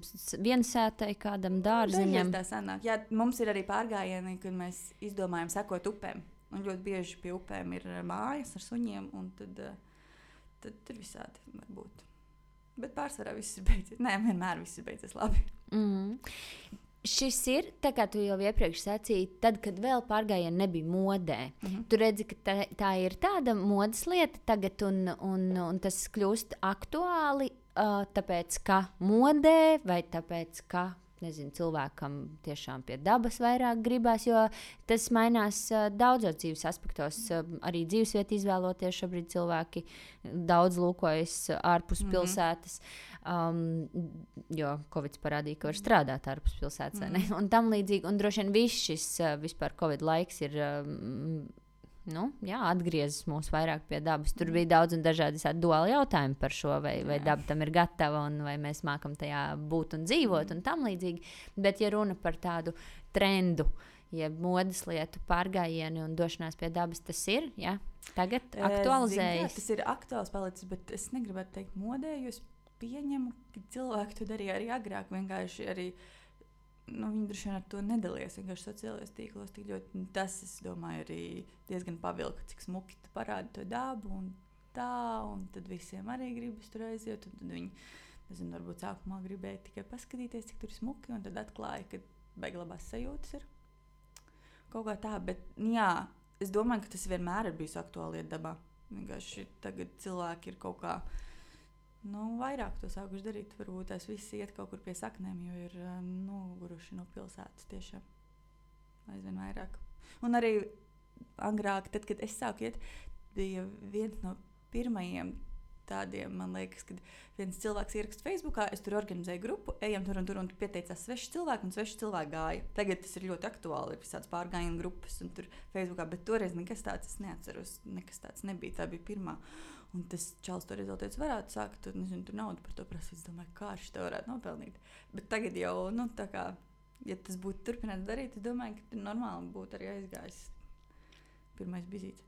viensētai, kādam dārziņam. Tā sanāk. Jā, mums ir arī pārgājieni, kad mēs izdomājam sekot upēm. Un ļoti bieži pie upēm ir mājas ar suņiem, un tad tur visādi var būt. Bet pārsvarā viss ir beidzies. Nē, vienmēr viss ir beidzies labi. Šis ir, tā kā tu jau iepriekš sacīji, tad, kad vēl pārgājieni nebija modē. Tu redzi, ka tā ir tāda modes lieta tagad, un tas kļūst aktuāli, tāpēc, ka modē, vai tāpēc, ka nezinu, cilvēkam tiešām pie dabas vairāk gribās, jo tas mainās daudzos dzīves aspektos. Arī dzīvesvietu izvēloties šobrīd cilvēki daudz lūkojas ārpus pilsētas, jo Covid parādīja, ka var strādāt ārpus pilsētas, un tam līdzīgi. Un droši vien viss šis vispār Covid laiks ir atgriezis mūs vairāk pie dabas. Tur bija daudz un dažādi duāli jautājumi par šo, vai daba tam ir gatava, un vai mēs mākam tajā būt un dzīvot, un tam līdzīgi. Bet, ja runa par tādu trendu, jeb modes lietu pārgājienu un došanās pie dabas, tas ir, jā, tagad aktualizējas. Tas ir aktuāls palicis, bet es negribētu teikt modē, jo es pieņemu, ka cilvēki to darīja arī agrāk, vienkārši arī viņi droši vien ar to nedalījās vienkārši sociālajos tīklos tik ļoti. Tas, es domāju, arī diezgan pavilka, cik smuki tu parādi to dabu un tā, un tad visiem arī gribas tur aiziet, un tad viņi, nezinu, varbūt sākumā gribēja tikai paskatīties, cik tur ir smuki, un tad atklāja, ka baigi labās sajūtas ir kaut kā tā, bet jā, es domāju, ka tas vienmēr ir bijis aktuāli iet dabā. Vienkārši tagad cilvēki ir kaut kā vairāk to sākuši darīt. Varbūt tās visi iet kaut kur pie saknēm, jo ir noguruši no pilsētas tiešām aizvien vairāk. Un arī agrāk, tad, kad es sāku iet, bija viens no pirmajiem tādiem, man liekas, kad viens cilvēks ieraksta Facebookā, es tur organizēju grupu, ejam tur un pieteicās sveši cilvēki, un sveši cilvēki gāja. Tagad tas ir ļoti aktuāli, ir visāds pārgājienu grupas un tur Facebookā, bet toreiz nekas tāds es neatceros, nekas tāds nebija, tā bija pirmā. Un tas čals to rezultāts varētu sākt, nezinu, tur naudu par to prasīt, es domāju, kā viņš to varētu nopelnīt. Bet tagad jau, tā kā, ja tas būtu turpināts darīt, es domāju, ka tur normāli būtu arī aizgājis pirmais bizīts.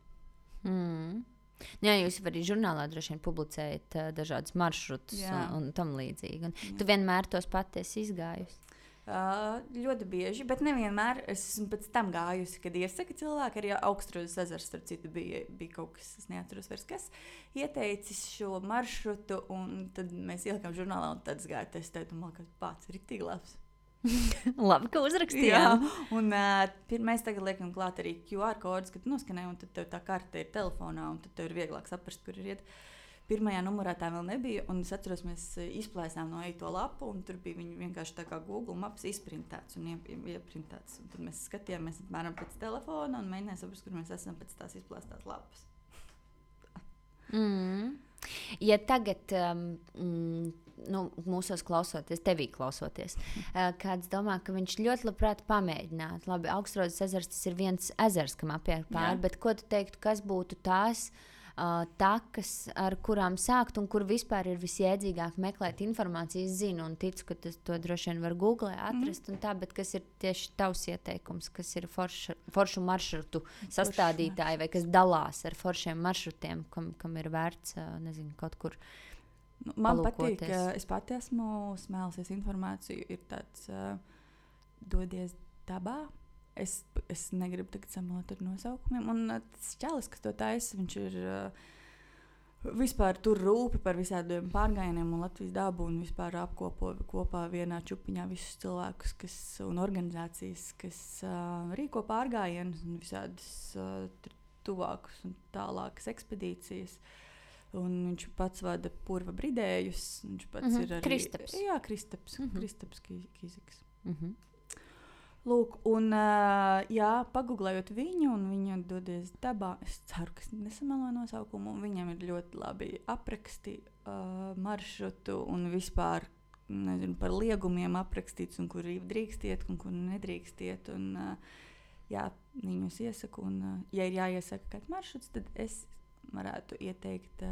Jā, jūs arī žurnālā droši vien publicējat dažādus maršrutus un tam līdzīgi. Un tu vienmēr tos pati esi izgājusi? Ļoti bieži, bet nevienmēr. Es esmu pēc tam gājusi, kad iesaka cilvēki, arī Augstrozes ezers, starp citu, bija kaut kas, es neatceros vairs kas, ieteicis šo maršrutu, un tad mēs ielikām žurnālā, un tad es gāju testēt, un man liekas, pats ir tik labs. Labi, ka uzrakstījām. Jā, un mēs tagad liekam klāt arī QR kodus, kad noskanē, un tad tev tā karte ir telefonā, un tad tev ir vieglāk saprast, kur ir iet. pirmajā numurā tā vēl nebija. Un es atceros, mēs izplēsām no to lapu, un tur bija viņa vienkārši tā kā Google Maps izprintēts un ieprintēts. Un tad mēs skatījāmies apmēram pēc telefona un mēģinājām saprast, kur mēs esam pēc tās izplēstās lapas. Ja tagad mūsos klausoties, tevī klausoties, kāds domā, ka viņš ļoti labprāt pamēģinātu. Labi, Augstrozes ezers, tas ir viens ezers, kam apiet pāri, bet ko tu teiktu, kas būtu tās takas, ar kurām sākt un kur vispār ir visjēdzīgāk meklēt informāciju? Es zinu un ticu, ka to droši vien var Google atrast un tā, bet kas ir tieši tavs ieteikums, kas ir foršu maršrutu sastādītāji vai kas dalās ar foršiem maršrutiem, kam ir vērts, nezinu, kaut kur man patīk, ka es pati esmu smēlusies informāciju, ir tāds dodies dabā. Es negribu tagad samalot ar nosaukumiem. Un tas čalis, kas to taisa, viņš ir vispār tur rūpi par visādiem pārgājieniem un Latvijas dabu un vispār apkopo kopā vienā čupiņā visus cilvēkus un organizācijas, kas rīko pārgājienus un visādas tuvākas un tālākas ekspedīcijas. Un viņš pats vada purva bridējus. Viņš pats ir arī... Kristaps. Jā, Kristaps Kīziks. Lūk, un paguglējot viņu, un viņa dodies dabā, es ceru, ka nesamelo nosaukumu, un viņam ir ļoti labi apraksti maršrutu un vispār, nezinu, par liegumiem aprakstīts, un kur drīkstiet, un kur nedrīkstiet, un viņus iesaku, un ja ir jāiesaka kāds maršruts, tad es varētu ieteikt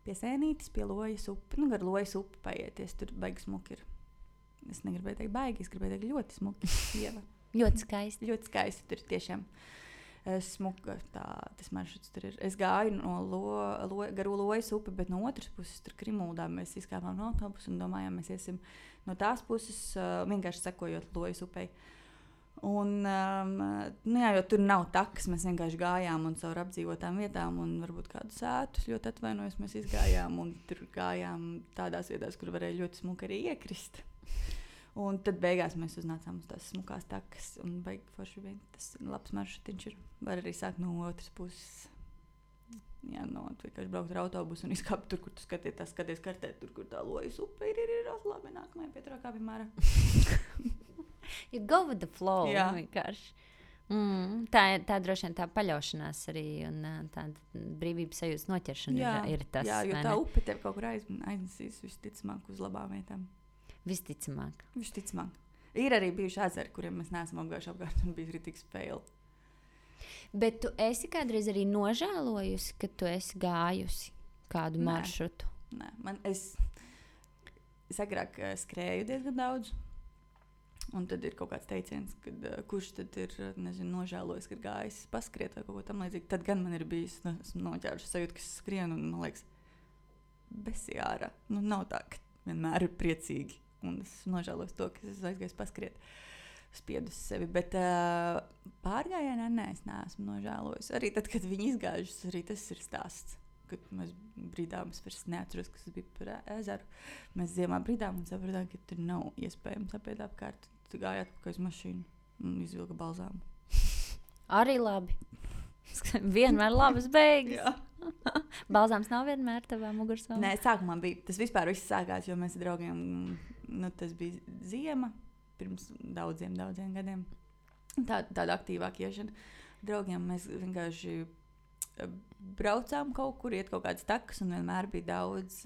pie Sēnītes, pie Lojas upi, gar Lojas upi paieties, tur baigi smuki ir. Es negribēju teikt baigi, es gribēju teikt ļoti smuki. Ļoti skaisti. Ļoti skaisti, tur tiešām smuka tas maršruts tur ir. Es gāju no garu Lojas upi, bet no otras puses tur Krimuldā mēs izkāpām no autobusu un domājām, mēs iesim no tās puses, vienkārši sekojot Lojas upei. Un, jo tur nav takas, mēs vienkārši gājām un caur apdzīvotām vietām un varbūt kādu sētus, ļoti atvainojos, mēs izgājām un tur gājām tādās vietās, kur varēja ļoti smuki arī iekrist. Un tad beigās mēs uznācām uz tās smukās takas un baigi forši vien. Tas labs maršrutiņš ir. Var arī sākt no otras puses. Jā, vienkārši braukt ar autobusu un izkāpt tur, kur tu skaties kartē, tur, kur tā Lojas upe ir labi, nākamajā pieturā kā vienmēr. You go with the flow, jā. Vienkārši. Tā droši vien tā paļaušanās arī un tāda brīvības sajūtas noķeršana ir tas. Jā, jo tā upe tev kaut kur aiznesīs visticamāk uz labām vietām. Visticamāk. Ir arī bijuši ezeri, kuriem mēs neesam apgājuši apkārt un bija rītīgs fail. Bet tu esi kādreiz arī nožēlojusi, ka tu esi gājusi kādu maršrutu? Nē, es agrāk skrēju diezgan daudz. Un tad ir kaut kāds teiciens, kad kurš tad ir, nezinu, nožēlojis, ka gājis paskriet vai kaut ko tam līdzīgi. Tad gan man ir bijis, esmu noķēruši sajūtu, ka es skrienu un, man liekas, besijāra. Nav tā, ka vienmēr ir priecīgi. Un es nožēlos to, ka es aizgāju paskriet, spiedu sevi. Bet pārgājienā es neesmu nožēlojis. Arī tad, kad viņi izgājušas, arī tas ir stāsts. Kad mēs brīdām, es vairs neatceros, kas bija par ezeru. Mēs ziemā brīdām un sapratām, ka tur nav iespējams apiet apkārt. Tu gāji atpakaļ uz mašīnu un izvilka balzāmu. Arī labi. Vienmēr labas beigas. Balzāms nav vienmēr tavā mugursolā? Nē, sākumā bija. Tas vispār viss sākās, jo mēs ar draugiem, tas bija ziema, pirms daudziem gadiem. Tāda aktīvāka iešana. Draugiem mēs vienkārši braucām kaut kur, iet kaut kādas takas, un vienmēr bija daudz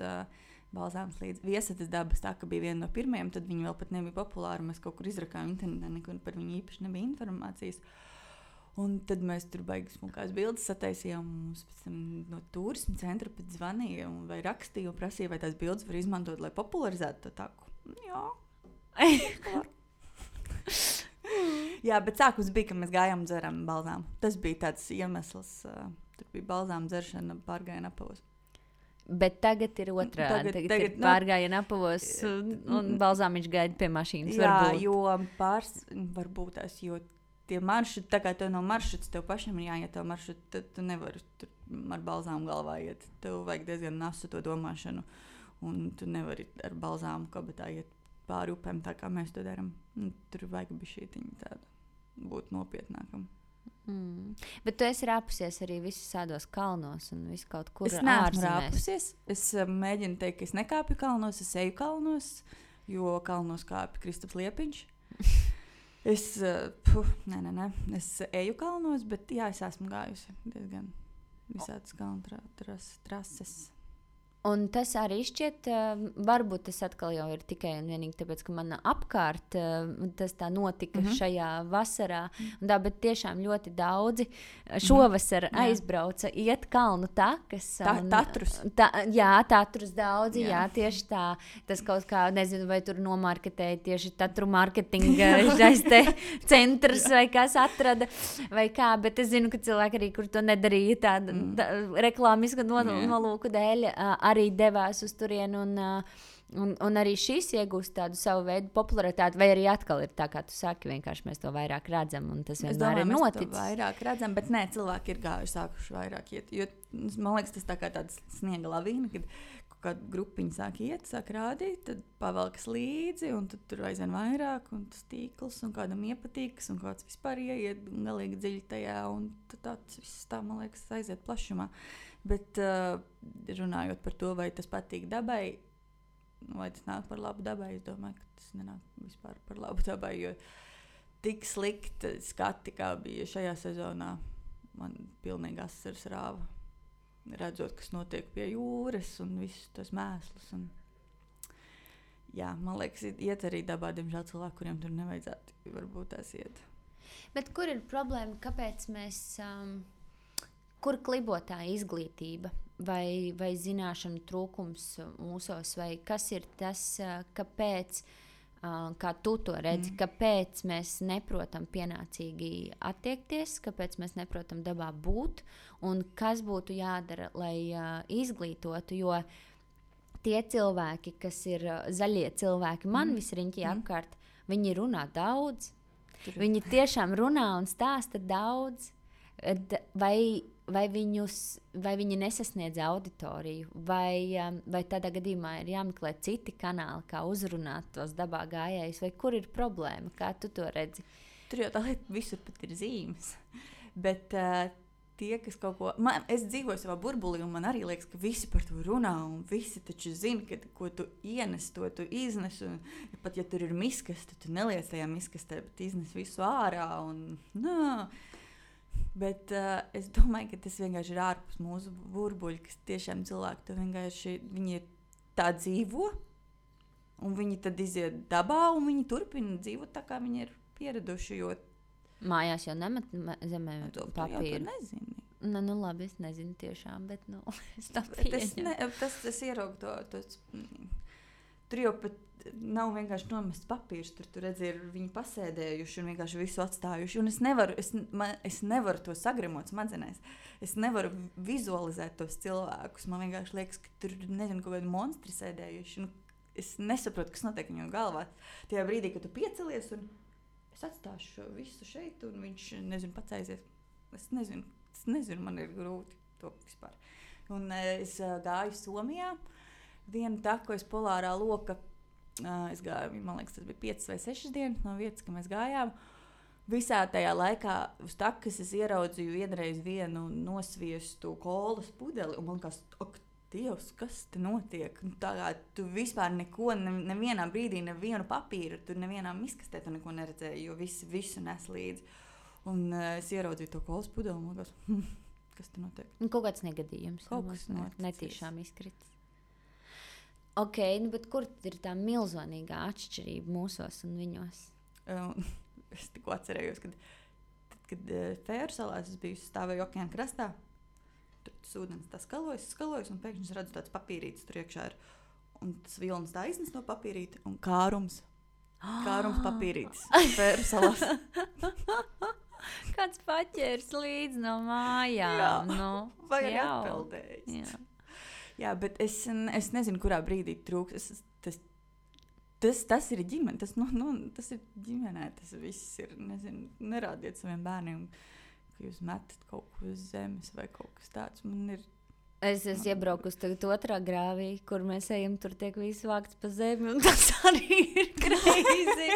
balzāms līdz. Viesatas dabas taka bija viena no pirmajiem, tad viņi vēl pat nebija populāri. Mēs kaut kur izrakām internetā, nekur par viņu īpaši nebija informācijas. Un tad mēs tur baigi smukās bildes sataisījām. Mums pēc tam no turisma centra pēc zvanīja vai rakstīja un prasīja, vai tās bildes var izmantot, lai popularizētu to taku. Jā. Jā, bet sākums bija, ka mēs gājām un dzerām balzām. Tas bija tāds iemesls. Tur bija balzām dzeršana pārgājiena apavos. Bet tagad ir otrādi. Tagad ir pārgājiena apavos un balzām viņš gaida pie mašīnas. Jā, varbūt. Jo varbūt tās, jo tie maršruti, tā kā tev no maršruts, tev pašam ir jāiet tev maršruti, tad tu nevari tur ar balzām galvā iet. Tev vajag diezgan nasu to domāšanu, un tu nevari ar balzām kabatā iet pāri upēm, tā kā mēs to darām. Tur vajag bišķītiņu tādu būt nopietnākam. Bet tu esi rāpusies arī visus tādos kalnos un visu kaut kur Es neesmu ārzemēs. rāpusies. Es mēģinu teikt, ka es nekāpju kalnos, es eju kalnos, jo kalnos kāpju Kristaps Liepiņš. Es eju kalnos, bet jā, es esmu gājusi diezgan visādas kalnu trases. Un tas arī šķiet, varbūt tas atkal jau ir tikai un vienīgi tāpēc, ka man apkārt tas tā notika šajā vasarā. Tā, bet tiešām ļoti daudzi šovasar aizbrauca iet kalnu takas. Tatrus. Jā, tatrus daudzi, jā, tieši tā. Tas kaut kā, nezinu, vai tur nomarketēja tieši tatru marketinga šais te centrs vai kas atrada vai kā, bet es zinu, ka cilvēki arī, kur to nedarīja tāda reklāmiska nolūku dēļ, arī devās uz turieni, un arī šis iegūst tādu savu veidu popularitāti, vai arī atkal ir tā, kā tu saki, vienkārši mēs to vairāk redzam, un tas vienmēr ir noticis. Mēs to vairāk redzam, bet nē, cilvēki ir gājuši, sākuši vairāk iet, jo, man liekas, tas tā kā tāds sniega lavīna, kad kāda grupiņa sāk iet, sāk rādīt, tad pavelkas līdzi, un tad tur aizvien vairāk, un tas tīkls, un kādam iepatīkas, un kāds vispār ieiet galīgi dziļi tajā, un tad viss tā, man liekas, aiziet plašumā. Bet runājot par to, vai tas patīk dabai, vai tas nāk par labu dabai, es domāju, ka tas nenāk vispār par labu dabai, jo tik slikti skati, kā bija šajā sezonā, man pilnīgi asaras rāva. Redzot, kas notiek pie jūras un visus tos mēslus. Un, jā, man liekas, iet arī dabā, diemžēl cilvēki, kuriem tur nevajadzētu, varbūt tās iet. Bet kur ir problēma, kāpēc mēs... Kur klibo tā izglītība vai zināšanu trūkums mūsos, vai kas ir tas, kāpēc, kā tu to redzi, kāpēc mēs neprotam pienācīgi attiekties, kāpēc mēs neprotam dabā būt, un kas būtu jādara, lai izglītotu, jo tie cilvēki, kas ir zaļie cilvēki, man visriņķī apkārt, viņi runā daudz, viņi tiešām runā un stāsta daudz, vai viņi nesasniedz auditoriju, vai tādā gadījumā ir jāmeklē citi kanāli, kā uzrunāt tos dabā gājējus, vai kur ir problēma, kā tu to redzi? Tur jau tā lieta visur pat ir zīmes, bet tie, kas kaut ko... Es dzīvoju savā burbulī, un man arī liekas, ka visi par to runā, un visi taču zina, ka ko tu ienes, to tu iznes, un pat ja tur ir miskaste, tu neliec tajā miskastē, bet iznes visu ārā, un Bet es domāju, ka tas vienkārši ir ārpus mūsu burbuļa, kas tiešām cilvēki to vienkārši, viņi ir tā dzīvo, un viņi tad iziet dabā, un viņi turpina dzīvot tā, kā viņi ir pieraduši, jo... Mājās jau nemet zemē papīru. Tu nezini. Nu labi, es nezinu tiešām, bet es tā pieņemu. Tas ieraugu to... Tur jau pat nav vienkārši nomests papīrs, tur redzi, ir viņi pasēdējuši un vienkārši visu atstājuši. Un es nevaru to sagremot smadzenēs. Es nevaru vizualizēt tos cilvēkus. Man vienkārši liekas, ka tur, nezinu, kaut kādi monstri sēdējuši. Es nesaprotu, kas notiek viņu galvā. Tajā brīdī, kad tu piecelies un es atstāšu visu šeit un viņš, nezinu, pats aizies. Es nezinu, man ir grūti to vispār. Un es gāju Somijā. Vienu taku es Polārā loka, es gāju, man liekas, tas bija 5 vai 6 dienas no vietas, ka mēs gājām. Visā tajā laikā uz takas es ieraudzīju vienreiz vienu nosviestu kolas pudeli, un man liekas, ak, Dievs, kas te notiek? Tā kā tu vispār neko, nevienā brīdī, nevienu papīru, tur nevienā miskastē tu neko neredzēji, jo visu nes līdzi. Un es ieraudzīju to kolas pudeli, un man liekas, kas te notiek? Kaut kāds negadījums. Kaut kas noticis. Netīšām izkrits. Ok, bet kur ir tā milzonīgā atšķirība mūsos un viņos? Es tikko atcerējos, kad Fēru salās es biju stāvēju okeāna krastā. Tur tas ūdens tā skalojas, un pēkšņi es redzu tāds papīrītis tur iekšā ir. Un tas vilnis tā iznes no papīrīti un kārums papīrītis Fēru salās. Kāds paķērs līdz no mājām. Vai arī atpeldējis. Jā, bet es nezinu, kurā brīdī trūks. Tas ir ģimene, tas ir ģimenē, tas viss ir, nezinu, nerādiet saviem bērniem, ka jūs metat kaut ko uz zemes vai kaut kas tāds. Man ir Es esmu iebraukusi tagad otrā grāvī, kur mēs ejam, tur tiek viss vākts pa zemi, un tas arī ir greizi.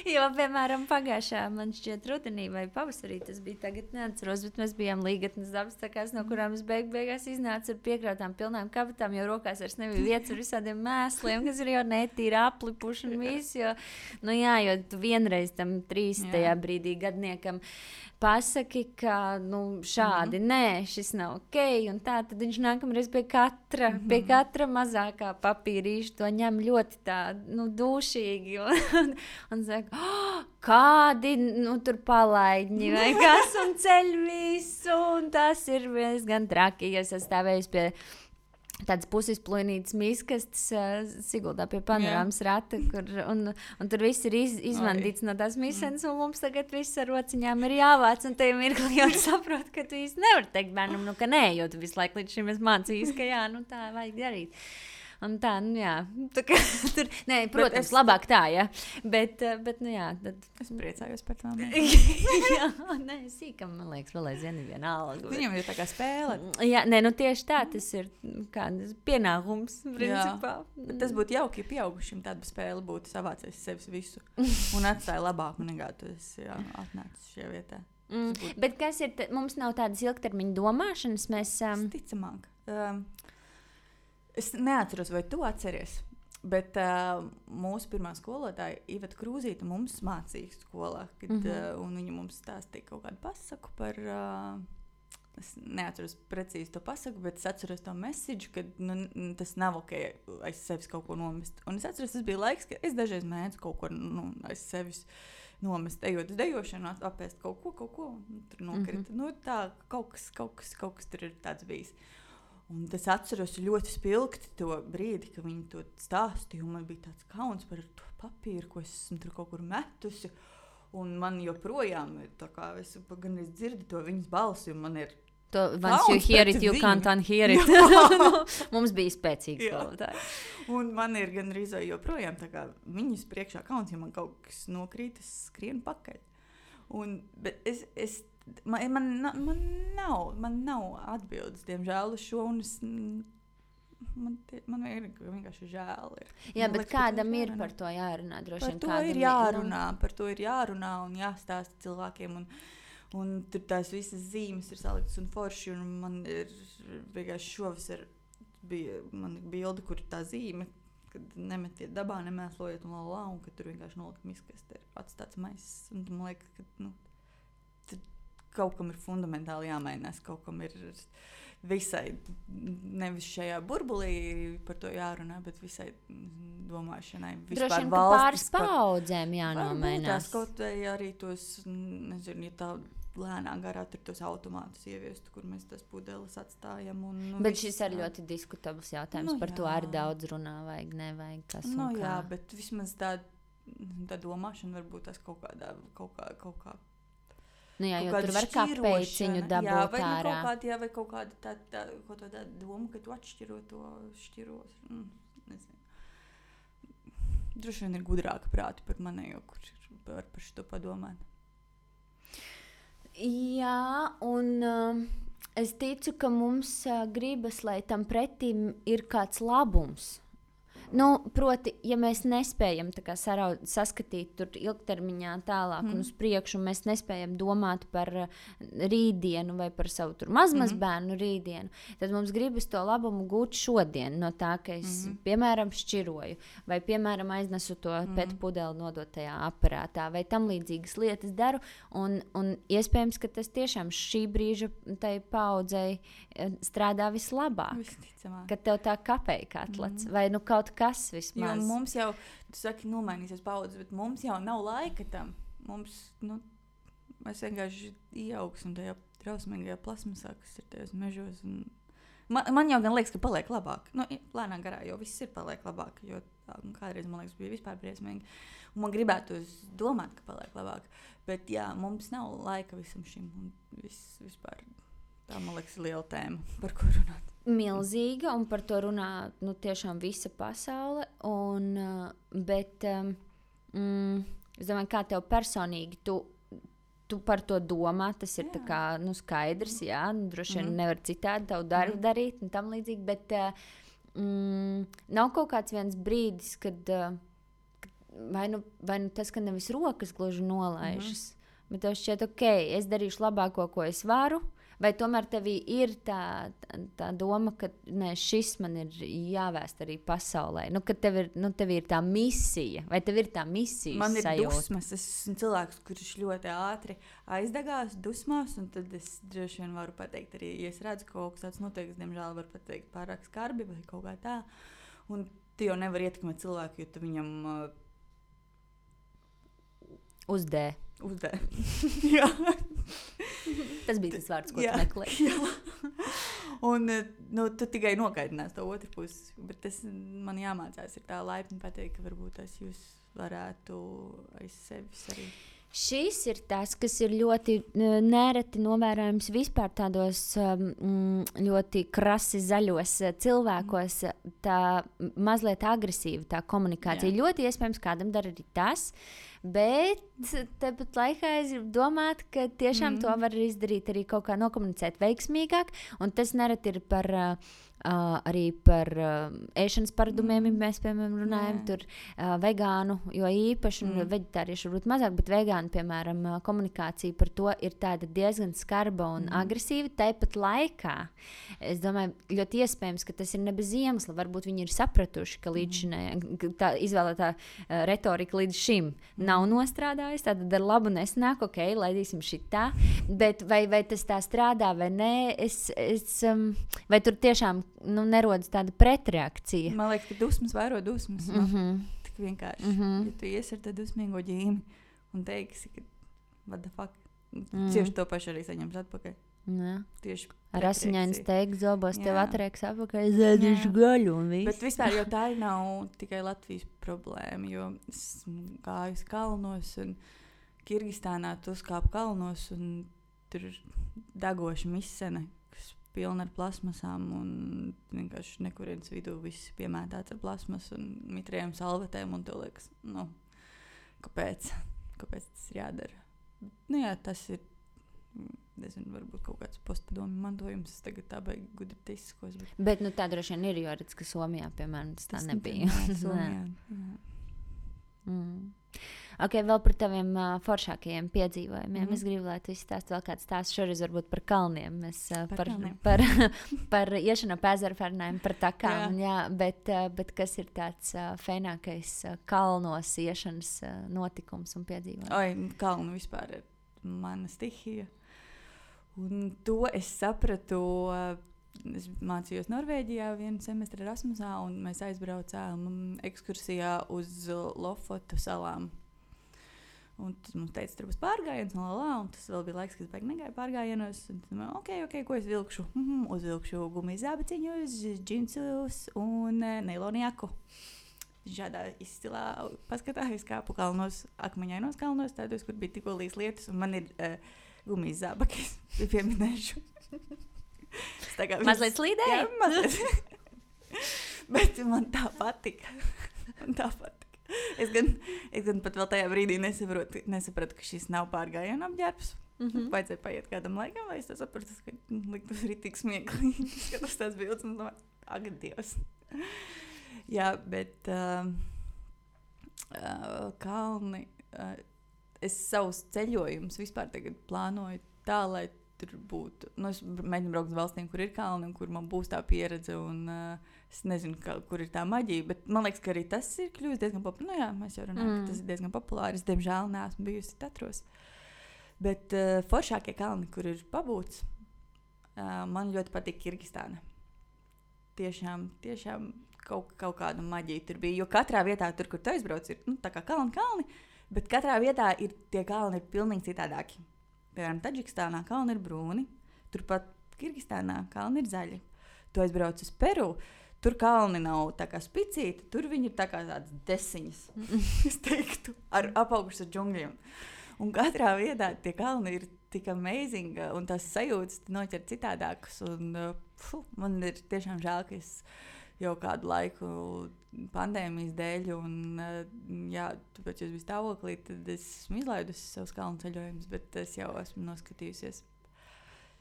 Jo, piemēram, pagājušā, man šķiet, rudenī vai pavasarī, tas bija tagad neatceros, bet mēs bijām Līgatnes dabas takās, no kurām es beigās iznācu ar piekrautām pilnām kabatām, jo rokās vairs nebija vietas ar visādiem mēsliem, kas ir jau netīri aplipuši un viss, jo, nu jā, jo tu vienreiz tam 30. brīdī gadniekam pasaki, ka nu, šādi, nē, šis nav ok, un tā, tad viņš nākamreiz pie katra mazākā papīrīša to ņem ļoti tā, nu, dūšīgi, un saka, kādi, nu, tur palaidņi, vai kas, un ceļ visu, un tas ir gan traki, ja es stāvējusi pie tādas pusizplūnītas miskastes Siguldā pie panorāmas rata, un tur viss ir izvandīts no tās misenes, un mums tagad viss ar rociņām ir jāvāc, un tajā mirklī jau saprot, ka tu īsti nevari teikt bērnam, nu, ka nē, jo tu visu laiku līdz šim esi mācījis, ka jā, nu tā vajag darīt. Un tā, nu jā, tā kā, tur, nē, protams, labāk tā, jā, bet nu jā. Tad... Es priecājos par tām. Jā, nē, sīkam, man liekas, vēl aizvien vienalga. Bet... Viņam ir tā kā spēle. Jā, nē, nu tieši tā, tas ir kāds pienākums, principā. Bet tas būtu jauki, ja pieaugušiem tāda spēle būtu savācies sevis visu un atstāja labāku nekā tu esi atnācis šajā vietā. Bet kas ir, mums nav tādas ilgtermiņa domāšanas, mēs... Ticamāk. Es neatceros, vai tu atceries, bet mūsu pirmā skolotāja Iveta Krūzīte mums mācīja skolā, un viņa mums stāstīja kaut kādu pasaku par, es neatceros precīzi to pasaku, bet es atceros to message, ka nu, tas nav ok aiz sevis kaut ko nomest. Un es atceros, tas bija laiks, ka es dažreiz mēdzu kaut ko aiz sevis nomest, ejot uz dejošanu, apēst kaut ko, un tur nokrita. Nu, tā, kaut kas tur ir tāds bijis. Un es atceros ļoti spilgti to brīdi, kad viņi to stāstīja, un man bija tāds kauns par to papīru, ko es esmu tur kaut kur metusi, un man joprojām ir tā kā, es gan es dzirdu to viņas balsi, un man ir once you hear it, you can't unhear it. Mums bija spēcīgs skolotāji. Un man ir gan arī joprojām tā kā viņas priekšā kauns, ja man kaut kas nokrīt, es skrienu pakaļ. Bet Man nav atbildes, diemžēl, uz šo, un man vienkārši žēl ir. Jā, bet kādam ir par to jārunā, droši vien kādam par to ir jārunā un jāstāsta cilvēkiem, un tur tās visas zīmes ir saliktas un forši, un man ir vienkārši šovasar bija man bilde, kur tā zīme, kad nemetiet dabā, nemēslojiet un ka tur vienkārši nolikt miskast ir atstāts maiss, un man liekas, ka, kaut kam ir fundamentāli jāmainās, kaut kam ir visai, nevis šajā burbulī par to jārunā, bet visai domāšanai. Droši vien, ka pāris paudzēm jānomainās. Tās kaut vai arī tos, nezinu, ja tā lēnā garā tur tos automātus ieviestu, kur mēs tas pudeles atstājam. Bet šis ir ļoti diskutabls jautājums, par to arī daudz runā, vajag, nevajag, kas un kā. Jā, bet vismaz tā domāšana varbūt tas kaut kā nu jā, jo tur var kāpēciņu dabūt ārā. Vai kaut kāda tā doma, ka tu atšķiro to šķiros. Nezinu. Droši vien ir gudrāka prāti par manējo, kur var par šito padomāt. Jā, un es ticu, ka mums gribas, lai tam pretim ir kāds labums. Nu, proti, ja mēs nespējam tā kā saskatīt tur ilgtermiņā tālāk un uz priekšu, un mēs nespējam domāt par rītdienu vai par savu tur mazbērnu rītdienu, tad mums gribas to labumu gūt šodien no tā, ka es, piemēram, šķiroju, vai, piemēram, aiznesu to pēc pudeli nodotajā aparātā, vai tam līdzīgas lietas daru, un iespējams, ka tas tiešām šī brīža tai paudzei strādā vislabāk. Visticamāk. Ka tev tā kapēja atlats, vai nu kaut kas vismaz. Jo mums jau, tu saki, nomainīsies paudzes, bet mums jau nav laika tam. Mums, mēs vienkārši ieaugsim tajā trausmīgajā plasmasā, kas ir tajos mežos. Man jau gan liekas, ka paliek labāk. Lēnā garā jau viss ir paliek labāk, jo kādreiz, man liekas, bija vispār briesmīgi. Un man gribētu domāt, ka paliek labāk. Bet jā, mums nav laika visam šim. Un vispār tā, man liekas, liela tēma, par ko runāt. Milzīga, un par to runā tiešām visa pasaule. Bet es domāju, kā tev personīgi, tu tu par to domā, tas ir tā kā, skaidrs, jā, droši vien nevar citādi tavu darbu darīt un tam līdzīgi, bet nav kaut kāds viens brīdis, kad vai nu tas, ka nevis rokas gluži nolaižas, bet tev šķiet, ok, es darīšu labāko, ko es varu, vai tomēr tevī ir tā doma, ka šis man ir jāvēst arī pasaulē, ka tev ir tā misija, vai tev ir tā misijas man ir sajūta? Dusmas, es esmu cilvēks, kurš ļoti ātri aizdegās dusmās, un tad es droši vien varu pateikt arī, ja es redzu, ka kaut kas tāds notiek, es diemžēl varu pateikt pārāk skarbi vai kaut kā tā, un tu jau nevar ietekmēt cilvēku, jo tu viņam Uzdē. Jā. Tas bija tas vārds, ko tu meklēji. Un tu tikai nokaidinās to otru pusi. Bet tas man jāmācās ir tā laipni pateikt, ka varbūt tas jūs varētu aiz sevis arī. Šis ir tas, kas ir ļoti nereti novērojams vispār tādos ļoti krasi zaļos cilvēkos, tā mazliet agresīva tā komunikācija. Jā. Ļoti iespējams, kādam dara arī tas, bet tepat laikā es gribu domāt, ka tiešām to var izdarīt arī kaut kā nokomunicēt veiksmīgāk, un tas nereti ir arī par ēšanas paradumiem, ja mēs, piemēram, runājam, tur vegānu, jo īpaši, un veģetārieši varbūt mazāk, bet vegānu, piemēram, komunikācija par to ir tāda diezgan skarba un agresīva. Tāpat laikā, es domāju, ļoti iespējams, ka tas ir ne bez iemesla. Varbūt viņi ir sapratuši, ka tā izvēlētā retorika līdz šim nav nostrādājusi, tātad ar labu nesnāk, ok, laidīsim šitā, bet vai tas tā strādā vai nē, vai tur tiešām nerodas tāda pretreakcija. Man liekas, ka dusmas vairo dusmas. Tik vienkārši. Ja tu ies ar tādu dusmīgo ģīmi un teiksi, ka what the fuck, tieši to pašu arī saņems atpakaļ. Tieši ar asiņainu steigu zobos tev atrieks atpakaļ, zēdīšu gaļu un viss. Bet vispār jau tā nav tikai Latvijas problēma, jo esmu gājus kalnos un Kirgistānā tu uzkāp kalnos un tur ir degoša misene, pilna ar plasmasām un vienkārši nekurienes vidū viss piemētāts ar plasmas un mitrējiem salvetēm un tev liekas, kāpēc tas ir jādara? Jā, tas ir, nezinu, varbūt kaut kāds postpadomju mantojums, es tagad tā baigi gudri teiskos. Bet tā droši vien ir, jo redz, ka Somijā, piemēram, tas tā nebija. Somijā, Ok, vēl par taviem foršākajiem piedzīvojumiem. Es gribu, lai tu izstāst vēl kāds stāsts šoreiz varbūt par kalniem. Mēs par iešanu pa ezeru parunājam, par takām, bet kas ir tāds fēnākais kalnos iešanas notikums un piedzīvojums? Kalnu vispār ir mana stihija. Un to es sapratu, es mācījos Norvēģijā vienu semestri Erasmusā, un mēs aizbraucām ekskursijā uz Lofotu salām. Un tas mums teica, tur būs pārgājiens, un tas vēl bija laiks, kad es baigi negāju pārgājienos. Ok, ko es vilkšu? Uzvilkšu gumijas zābaciņus, džinsus un neilonu jaku. Šādā izcilā paskatā es kāpu kalnos, akmeņainos kalnos, tādos, kur bija tikko līs lietas, un man ir gumijas zābaki, es pieminēšu. Mazliet slīdēja? Jā, mazliet. Bet man tā patika. Es gan pat vēl tajā brīdī nesapratu, ka šis nav pārgājienu apģērbs. Vajadzēja paiet kādam laikam, lai es to sapratu, ka liktos ritīgi smieklīgi. Skatos tās bildes un domāju, ak, Dievs. Jā, bet kalni, es savus ceļojumus vispār tagad plānoju tā, lai tur būtu. Es mēģinu braukt uz valstīm, kur ir kalni un kur man būs tā pieredze un es nezinu, kur ir tā maģija, bet man liekas, ka arī tas ir kļuvis diezgan populārs. Mēs jau runājam, ka tas ir diezgan populārs. Es, diemžēl, neesmu bijusi Tatros. Bet foršākie kalni, kur ir pabūts, man ļoti patīk Kirgistāna. Tiešām kaut kāda maģija tur bija, jo katrā vietā, tur, kur tu aizbrauc, ir tā kā kalni, bet katrā vietā tie kalni ir pilnīgi citādāki. Piemēram, Taģikistānā kalni ir brūni, turpat Kirgistānā kalni ir zaļi. Tu aizbrauc uz Peru, tur kalni nav tā kā spicīti, tur viņi ir tā kā tādas desiņas, es teiktu, apaugušas ar džungļiem. Un katrā vietā tie kalni ir tik amazing, un tās sajūtas noķer citādākas. Un, man ir tiešām žēl, ka es jau kādu laiku pandēmijas dēļ, un jā, tāpēc jūs biji stāvoklī, tad es esmu izlaidusi savus kalnu ceļojumus, bet es jau esmu noskatījusies.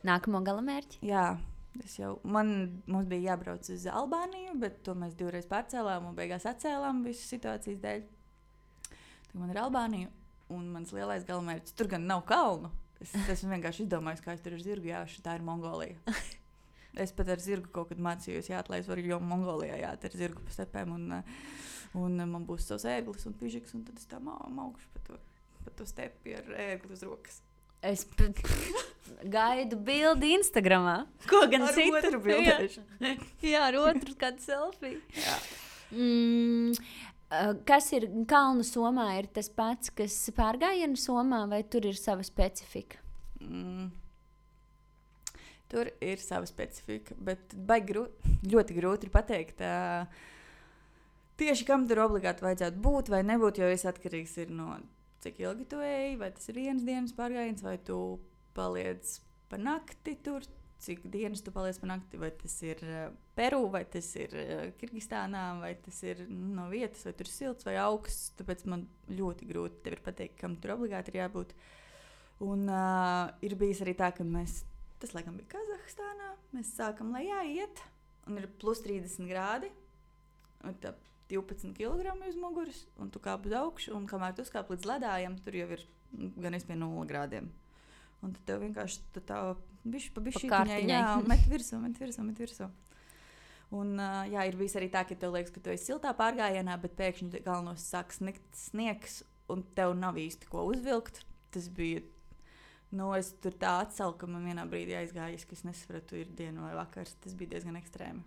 Nākamo galamērķi? Jā, mums bija jābrauc uz Albāniju, bet to mēs 2 reizes pārcēlām un beigās atcēlām visu situācijas dēļ. Tad man ir Albānija, un mans lielais galamērķis, tur gan nav kalnu. Es esmu vienkārši izdomājis, kā es tur ar zirgu jāšu, tā ir Mongolija. Es pat ar zirgu kaut kad mācījos jāt, lai es varu jau Mongolijā jāt ar zirgu pa stepēm, un man būs savs ērglis un pižiks, un tad es tā maukšu pa to stepi ar ērgli uz rokas. Es gaidu bildi Instagramā. Ko gan Ar citu? otru bildēšu. Jā, ar otru kādu selfiju. Jā. Kas ir kalnu somā? Ir tas pats, kas pārgājienu somā, vai tur ir sava specifika? Tur ir sava specifika, bet ļoti grūti ir pateikt, tieši kam tur obligāti vajadzētu būt vai nebūt, jo viss atkarīgs ir no cik ilgi tu ej, vai tas ir 1 dienas pārgājiens, vai tu paliec pa nakti tur, cik dienas tu paliec pa nakti, vai tas ir Peru, vai tas ir Kirgistānā, vai tas ir no vietas, vai tur ir silts vai augsts, tāpēc man ļoti grūti tev ir pateikt, kam tur obligāti ir jābūt. Un ir bijis arī tā, ka tas laikam bija Kazahstānā, mēs sākam lejā iet, un ir plus 30 grādi, un tā 12 kg uz muguras, un tu kāp uz augšu, un kamēr tu uzkāp līdz ledājam, tur jau ir gan pie 0 grādiem. Un tad tev vienkārši tā bišķi pa bišķītiņai, met virsū. Un jā, ir bijis arī tā, ka tev liekas, ka tu esi siltā pārgājienā, bet pēkšņi galvenos sāk sniegs, un tev nav īsti ko uzvilkt. Tas bija, es tur tā atsalu, ka man vienā brīdī aizgājis, ka es nesapratu, ir diena vai vakars. Tas bija diezgan ekstrēmi.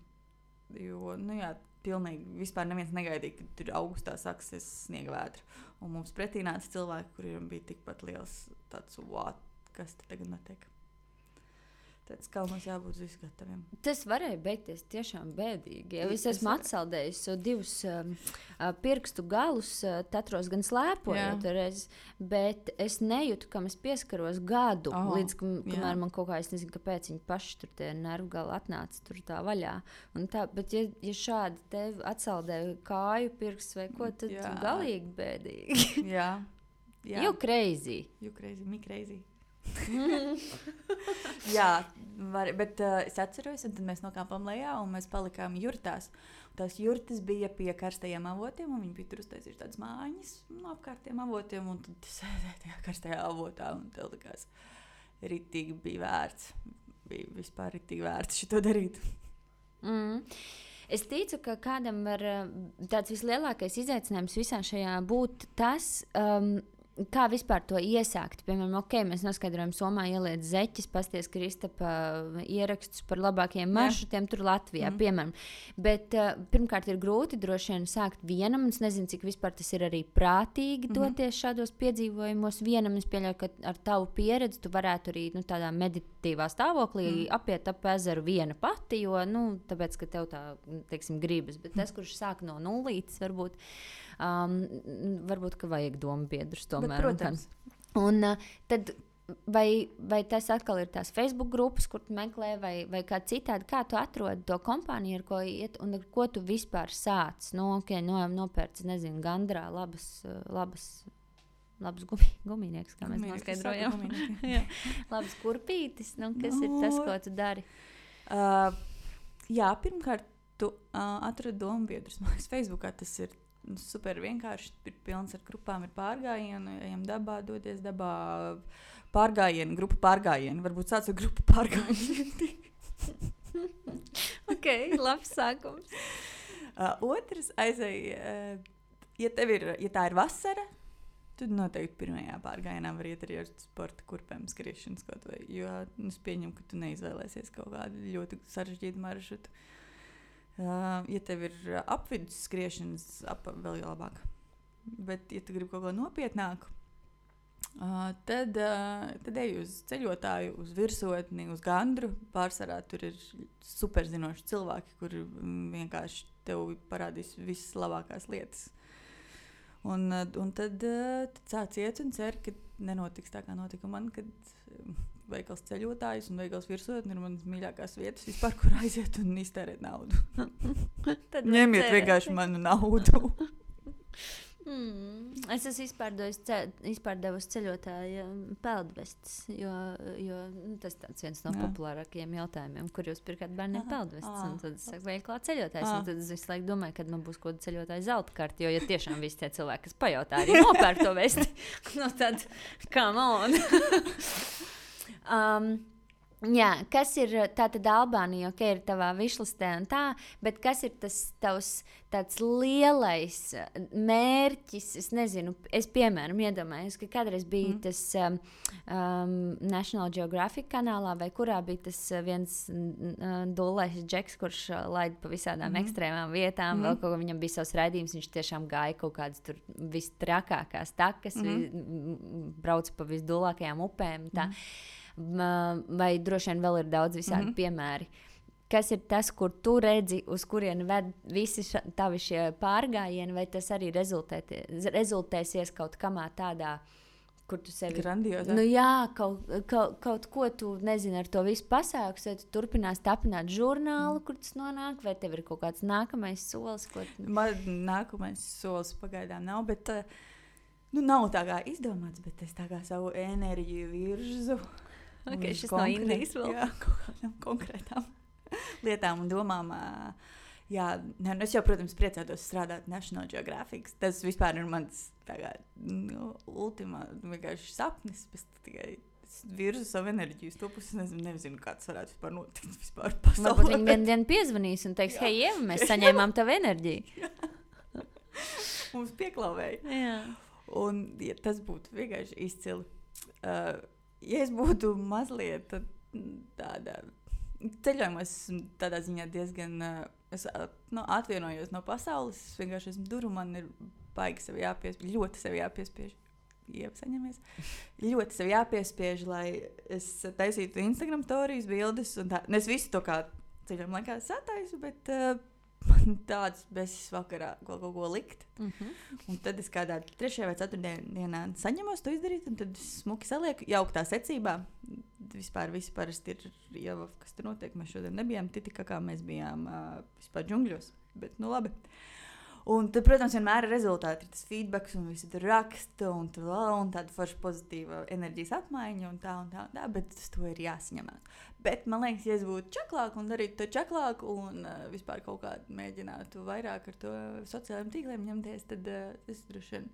Jo, jā, pilnīgi vispār neviens negaidīja, ka tur augustā sāksies sniega vētra. Un mums pretī nāca cilvēki, kuriem bija tikpat liels tāds, kas te tagad notiek. Tāds kalnos jābūt visu gataviem. Tas varēja beigties tiešām bēdīgi. Ja es esmu atsaldējis 2 pirkstu galus, tatros gan slēpojot reiz, bet es nejūtu, kam es pieskaros gadu, līdz kamēr man kaut kā, es nezinu, kāpēc viņi paši tur tie nervu gali atnāca tur tā vaļā. Un tā, bet ja šādi tev atsaldēja kāju pirksts vai ko, tad galīgi bēdīgi. Jā. You crazy. Me crazy. Jā, bet es atceros, un tad mēs nokāpām lejā, un mēs palikām jurtās. Tās jurtas bija pie karstajiem avotiem, un viņi bija tur uztaisījuši tādas mājiņas apkārt tiem avotiem, un tad sēdēja tajā karstajā avotā, un tev likās ritīgi bija vērts. Bija vispār ritīgi vērts šito darīt. Es ticu, ka kādam var tāds vislielākais izaicinājums visā šajā būt tas, kā vispār to iesākt. Piemēram, mēs noskaidrojam, Somā ieliet zeķis, pasties Kristapa ierakstus par labākajiem maršrutiem tur Latvijā, piemēram. Bet pirmkārt ir grūti droši vien sākt vienam, un es nezinu, cik vispār tas ir arī prātīgi doties šādos piedzīvojumos vienam. Es pieļauju, ka ar tavu pieredzi tu varētu arī tādā meditatīvā stāvoklī apiet ap ezeru viena pati, jo, tāpēc, ka tev tā, teiksim, gribas. Bet tas, kurš sāk no nulītes, varbūt, ka vajag domu biedrus tomēr. Bet, protams. Un tad vai tas atkal ir tās Facebook grupas, kur tu meklē, vai kā citādi, kā tu atrodi to kompāniju, ar ko iet, un ar ko tu vispār sāc? Nopērc, nezinu, Gandrā labas gumijnieks, kā mēs noskaidrojam. Labas kurpītis, kas ir tas, ko tu dari? Jā, pirmkārt, tu atrodi domu biedrus. Man liekas, Facebookā tas ir super vienkārši, ir pilns ar grupām, ir pārgājienu, ejam dabā, dodies dabā, pārgājienu, grupa pārgājienu, varbūt sāc ar grupu pārgājienu. Ok, labs sākums. Otrs aizēj, ja tā ir vasara, tad noteikti pirmajā pārgājienā var iet arī ar sporta kurpēm skriešanas kaut vai, jo es pieņemu, ka tu neizvēlēsies kaut kādu ļoti sarežģītu maršrutu. Ja tev ir apvidus skriešanas, vēl labāk. Bet, ja tu gribi kaut ko nopietnāku, tad ej uz ceļotāju, uz virsotni, uz Gandru. Pārsvarā tur ir superzinoši cilvēki, kuri vienkārši tev parādīs visas labākās lietas. Un tad sāc iet un cer, ka nenotiks tā, kā notika man, kad veikals ceļotājs un veikals virsotne ir manas mīļākās vietas vispār, kur aiziet un iztērēt naudu. Ņemiet vienkārši manu naudu. Es esmu izpārdevusi ceļotāju peldvestes, jo tas tāds viens no populārākajiem jautājumiem, kur jūs pirkāt bērniem peldvestes. Un tad es saku, veiklā ceļotājs. Un tad es visu laiku domāju, kad man būs kaut kāda ceļotāja zelta karta, jo ja tiešām visi tie cilvēki, kas pajautā, arī nopērk to vesti. No tad, come on! Jā, kas ir tātad Albānija, ok, ir tavā višlistē un tā, bet kas ir tas tavs tāds lielais mērķis, es nezinu, es piemēram iedomājos, ka kādreiz bija tas National Geographic kanālā, vai kurā bija tas viens dullais džeks, kurš laida pa visādām ekstrēmām vietām, vēl kaut ko viņam bija savs raidījums, viņš tiešām gāja kaut kādas tur vistrakākās takas, brauca pa visdullākajām upēm, tā. Vai droši vien vēl ir daudz visādi piemēri. Kas ir tas, kur tu redzi, uz kurieni ved visi tavi šie pārgājieni, vai tas arī rezultēsies kaut kamā tādā, kur tu sevi... Grandiozā. Nu jā, kaut ko tu nezini ar to visu pasākus, vai tu turpinās tapināt žurnālu, kur tas nonāk, vai tev ir kaut kāds nākamais solis, ko... Man nākamais solis pagaidām nav, bet nav tā kā izdomāts, bet es tā kā savu enerģiju virzu. Okay, šis no Indijas vēl. Jā, kaut kādām konkrētām lietām un domām. Jā, es jau, protams, priecātos strādāt National Geographic. Tas vispār ir mans ultimā vienkārši sapnis. Es tikai virzu savu enerģiju uz to pusi. Nezinu, kā tas varētu vispār notikt vispār pasaulē. Varbūt viņi vienu dienu piezvanīs un teiks, hei, Ieva, mēs saņēmām tavu enerģiju. Mums pieklāvēja. Jā. Un ja tas būtu vienkārši izcili. Ja es būtu mazliet tāda ceļojumā, tādā ziņā diezgan atvienojos no pasaules, es vienkārši esmu duru, man ir baigi sevi jāpiespiež, ļoti sevi jāpiespiež. Iesaņamies. Ļoti sevi jāpiespiež, lai es taisītu Instagram stories, bildes un tā. Es visu to kā ceļojuma laikā sataisu, bet man tāds besis vakarā kaut ko likt. Un tad es kādā 3. vai 4. dienā saņemos to izdarīt, un tad smuki salieku jauktā secībā. Vispār visi parasti ir jau, kas tur notiek. Mēs šodien nebijām Titikakā, mēs bijām vispār džungļos, bet nu labi. Un tad, protams, vienmēr ir rezultāti, ir tas feedbacks un visi tur raksta un tāda forša pozitīva enerģijas apmaiņa un tā, bet uz to ir jāsaņemās. Bet man liekas, ja es būtu čaklāk un darītu to čaklāk un vispār kaut kā mēģinātu vairāk ar to sociālajiem tīkliem ņemties, tad es droši vien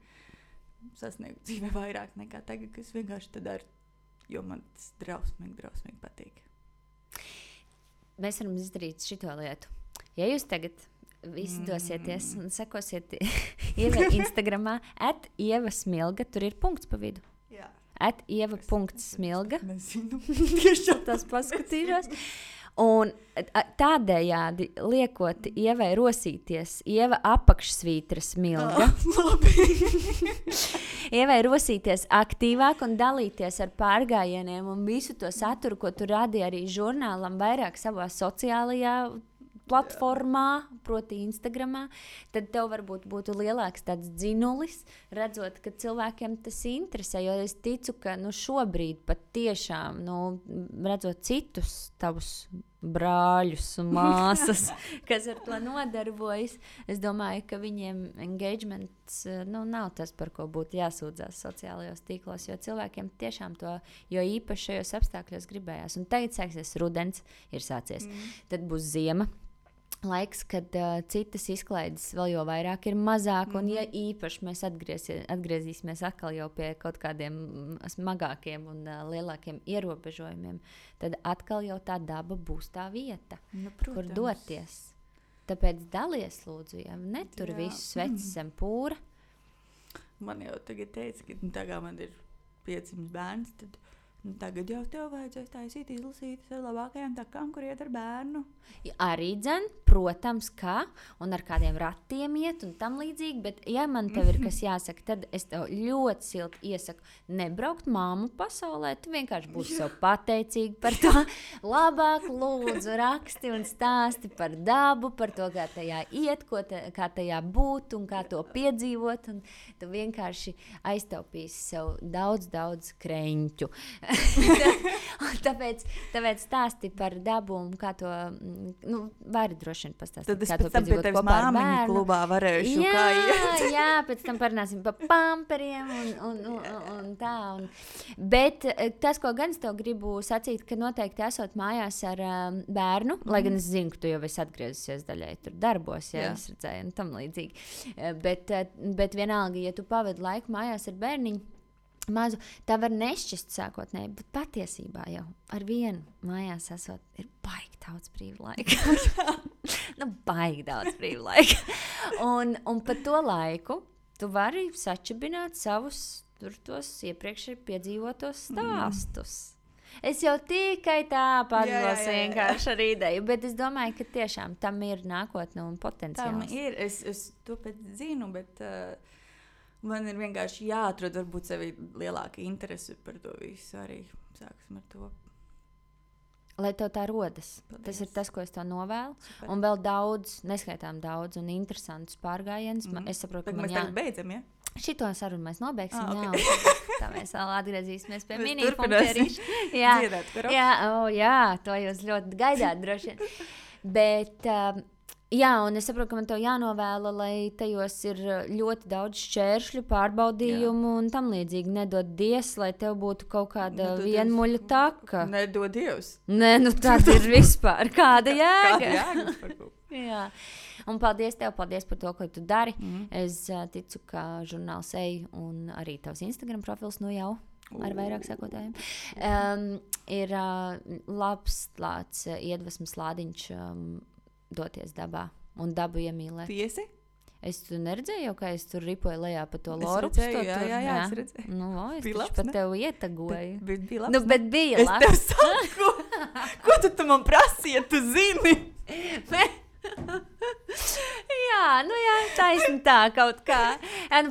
sasniegtu dzīvē vairāk nekā tagad, kas vienkārši tad daru, jo man tas drausmīgi patīk. Mēs varam izdarīt šito lietu. Ja jūs tagad visi dosieties un sekosiet Ievai Instagramā @ievasmilga, tur ir punkts pa vidu. Jā. @ieva.smilga. Nezinu, tieši tas paskatīšos. Un tādējādi liekot Ievai rosīties, Ieva apakšsvītra smilga. Ievai rosīties aktīvāk un dalīties ar pārgājieniem un visu to saturu, ko tu radi arī žurnālam vairāk savā sociālajā platformā, proti Instagramā, tad tev varbūt būtu lielāks tāds dzinulis, redzot, ka cilvēkiem tas interesē, jo es ticu, ka šobrīd pat tiešām, redzot citus tavus brāļus un māsas, kas ar to nodarbojas, es domāju, ka viņiem engagements nav tas, par ko būtu jāsūdzās sociālajos tīklos, jo cilvēkiem tiešām to, jo īpaši šajos apstākļos gribējās. Un tagad sāksies rudens, ir sācies. Tad būs ziema. Laiks, kad citas izklaides vēl jau vairāk ir mazāk, un ja īpaši mēs atgriezīsimies atkal jau pie kaut kādiem smagākiem un lielākiem ierobežojumiem, tad atkal jau tā daba būs tā vieta, kur doties. Tāpēc dalies, lūdzu, ja netur visu svecis zem pūra. Man jau tagad teica, ka tagad man ir 500 bērns, tad tagad jau tev vajadzēs taisīt izlasīt ar labākajām takām, kur iet ar bērnu. Arī dzen, protams, kā, un ar kādiem ratiem iet un tam līdzīgi, bet ja man tev ir kas jāsaka, tad es tev ļoti silti iesaku nebraukt māmu pasaulē, tu vienkārši būsi sev pateicīgi par to. Labāk lūdzu raksti un stāsti par dabu, par to, kā tajā iet, kā tajā būt un kā to piedzīvot, un tu vienkārši aiztaupīsi sev daudz kreņķu. Tāpēc stāsti par dabu un kā to, vari droši vien pastāstīt, Tad es kā to pēc tam pie piedzīvot tevis kopā ar māmiņu bērnu. klubā varēšu kā iet. Jā, pēc tam parunāsim par pamperiem un tā. Bet tas, ko gan es tev gribu sacīt, ka noteikti esot mājās ar bērnu, lai gan es zinu, ka tu jau esi atgriezusies daļai tur darbos, ja es redzēju un tam līdzīgi. Bet vienalga, ja tu pavadi laiku mājās ar bērniņu, mazu, tā var nešķist sākotnēji, bet patiesībā jau ar vienu mājās esot, ir baigi daudz brīva laika. Baigi daudz brīva laika. Un pa to laiku tu vari sačibināt savus tur tos iepriekš piedzīvotos stāstus. Es jau tikai tā padlos vienkārši ar ideju, bet es domāju, ka tiešām tam ir nākotne un potenciāls. Tam ir, es to pēc zinu, bet man ir vienkārši jāatrod varbūt sevi lielāka interese par to visu arī. Sāksim ar to. Lai tev tā rodas. Paldies. Tas ir tas, ko es tev novēlu. Super. Un vēl daudz, neskaitām daudz un interesantus pārgājienus. Es saprotu, ka mēs tagad beidzam, ja? Šito sarunu mēs nobeigsim, okay. Tā mēs vēl atgriezīsimies pie mēs mini-punkterīša. Jā, to jūs ļoti gaidāt droši vien. Bet, un es saprotu, ka man tev jānovēla, lai tajos ir ļoti daudz šķēršļu, pārbaudījumu un tam līdzīgi. Nedod Dievs, lai tev būtu kaut kāda vienmuļa taka. Nedod Dievs. Nē, tad ir vispār. Kāda jēga? Kāda jēga vispār? Jā. Un paldies tev, paldies par to, ko tu dari. Es ticu, ka žurnāls Ej un arī tavs Instagram profils jau ar vairāk sekotājiem ir labs tāds iedvesmas lādiņš doties dabā un dabu iemīlēt. Tiesi? Es tu neredzēju, kā es tur ripoju lejā pa to loru. Jā, es redzēju. Es taču pat tev ietagoju. Bija labs. Bet bija labs. Es tev saku, ko tu man prasīji, ja tu zini? Jā, taisni tā kaut kā.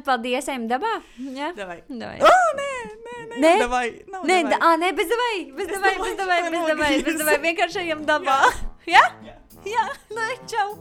Paldies, ejam dabā. Jā, davai. Nē, davai. Nē, bez davai. Vienkārši ejam dabā. Jā? Jā, čau.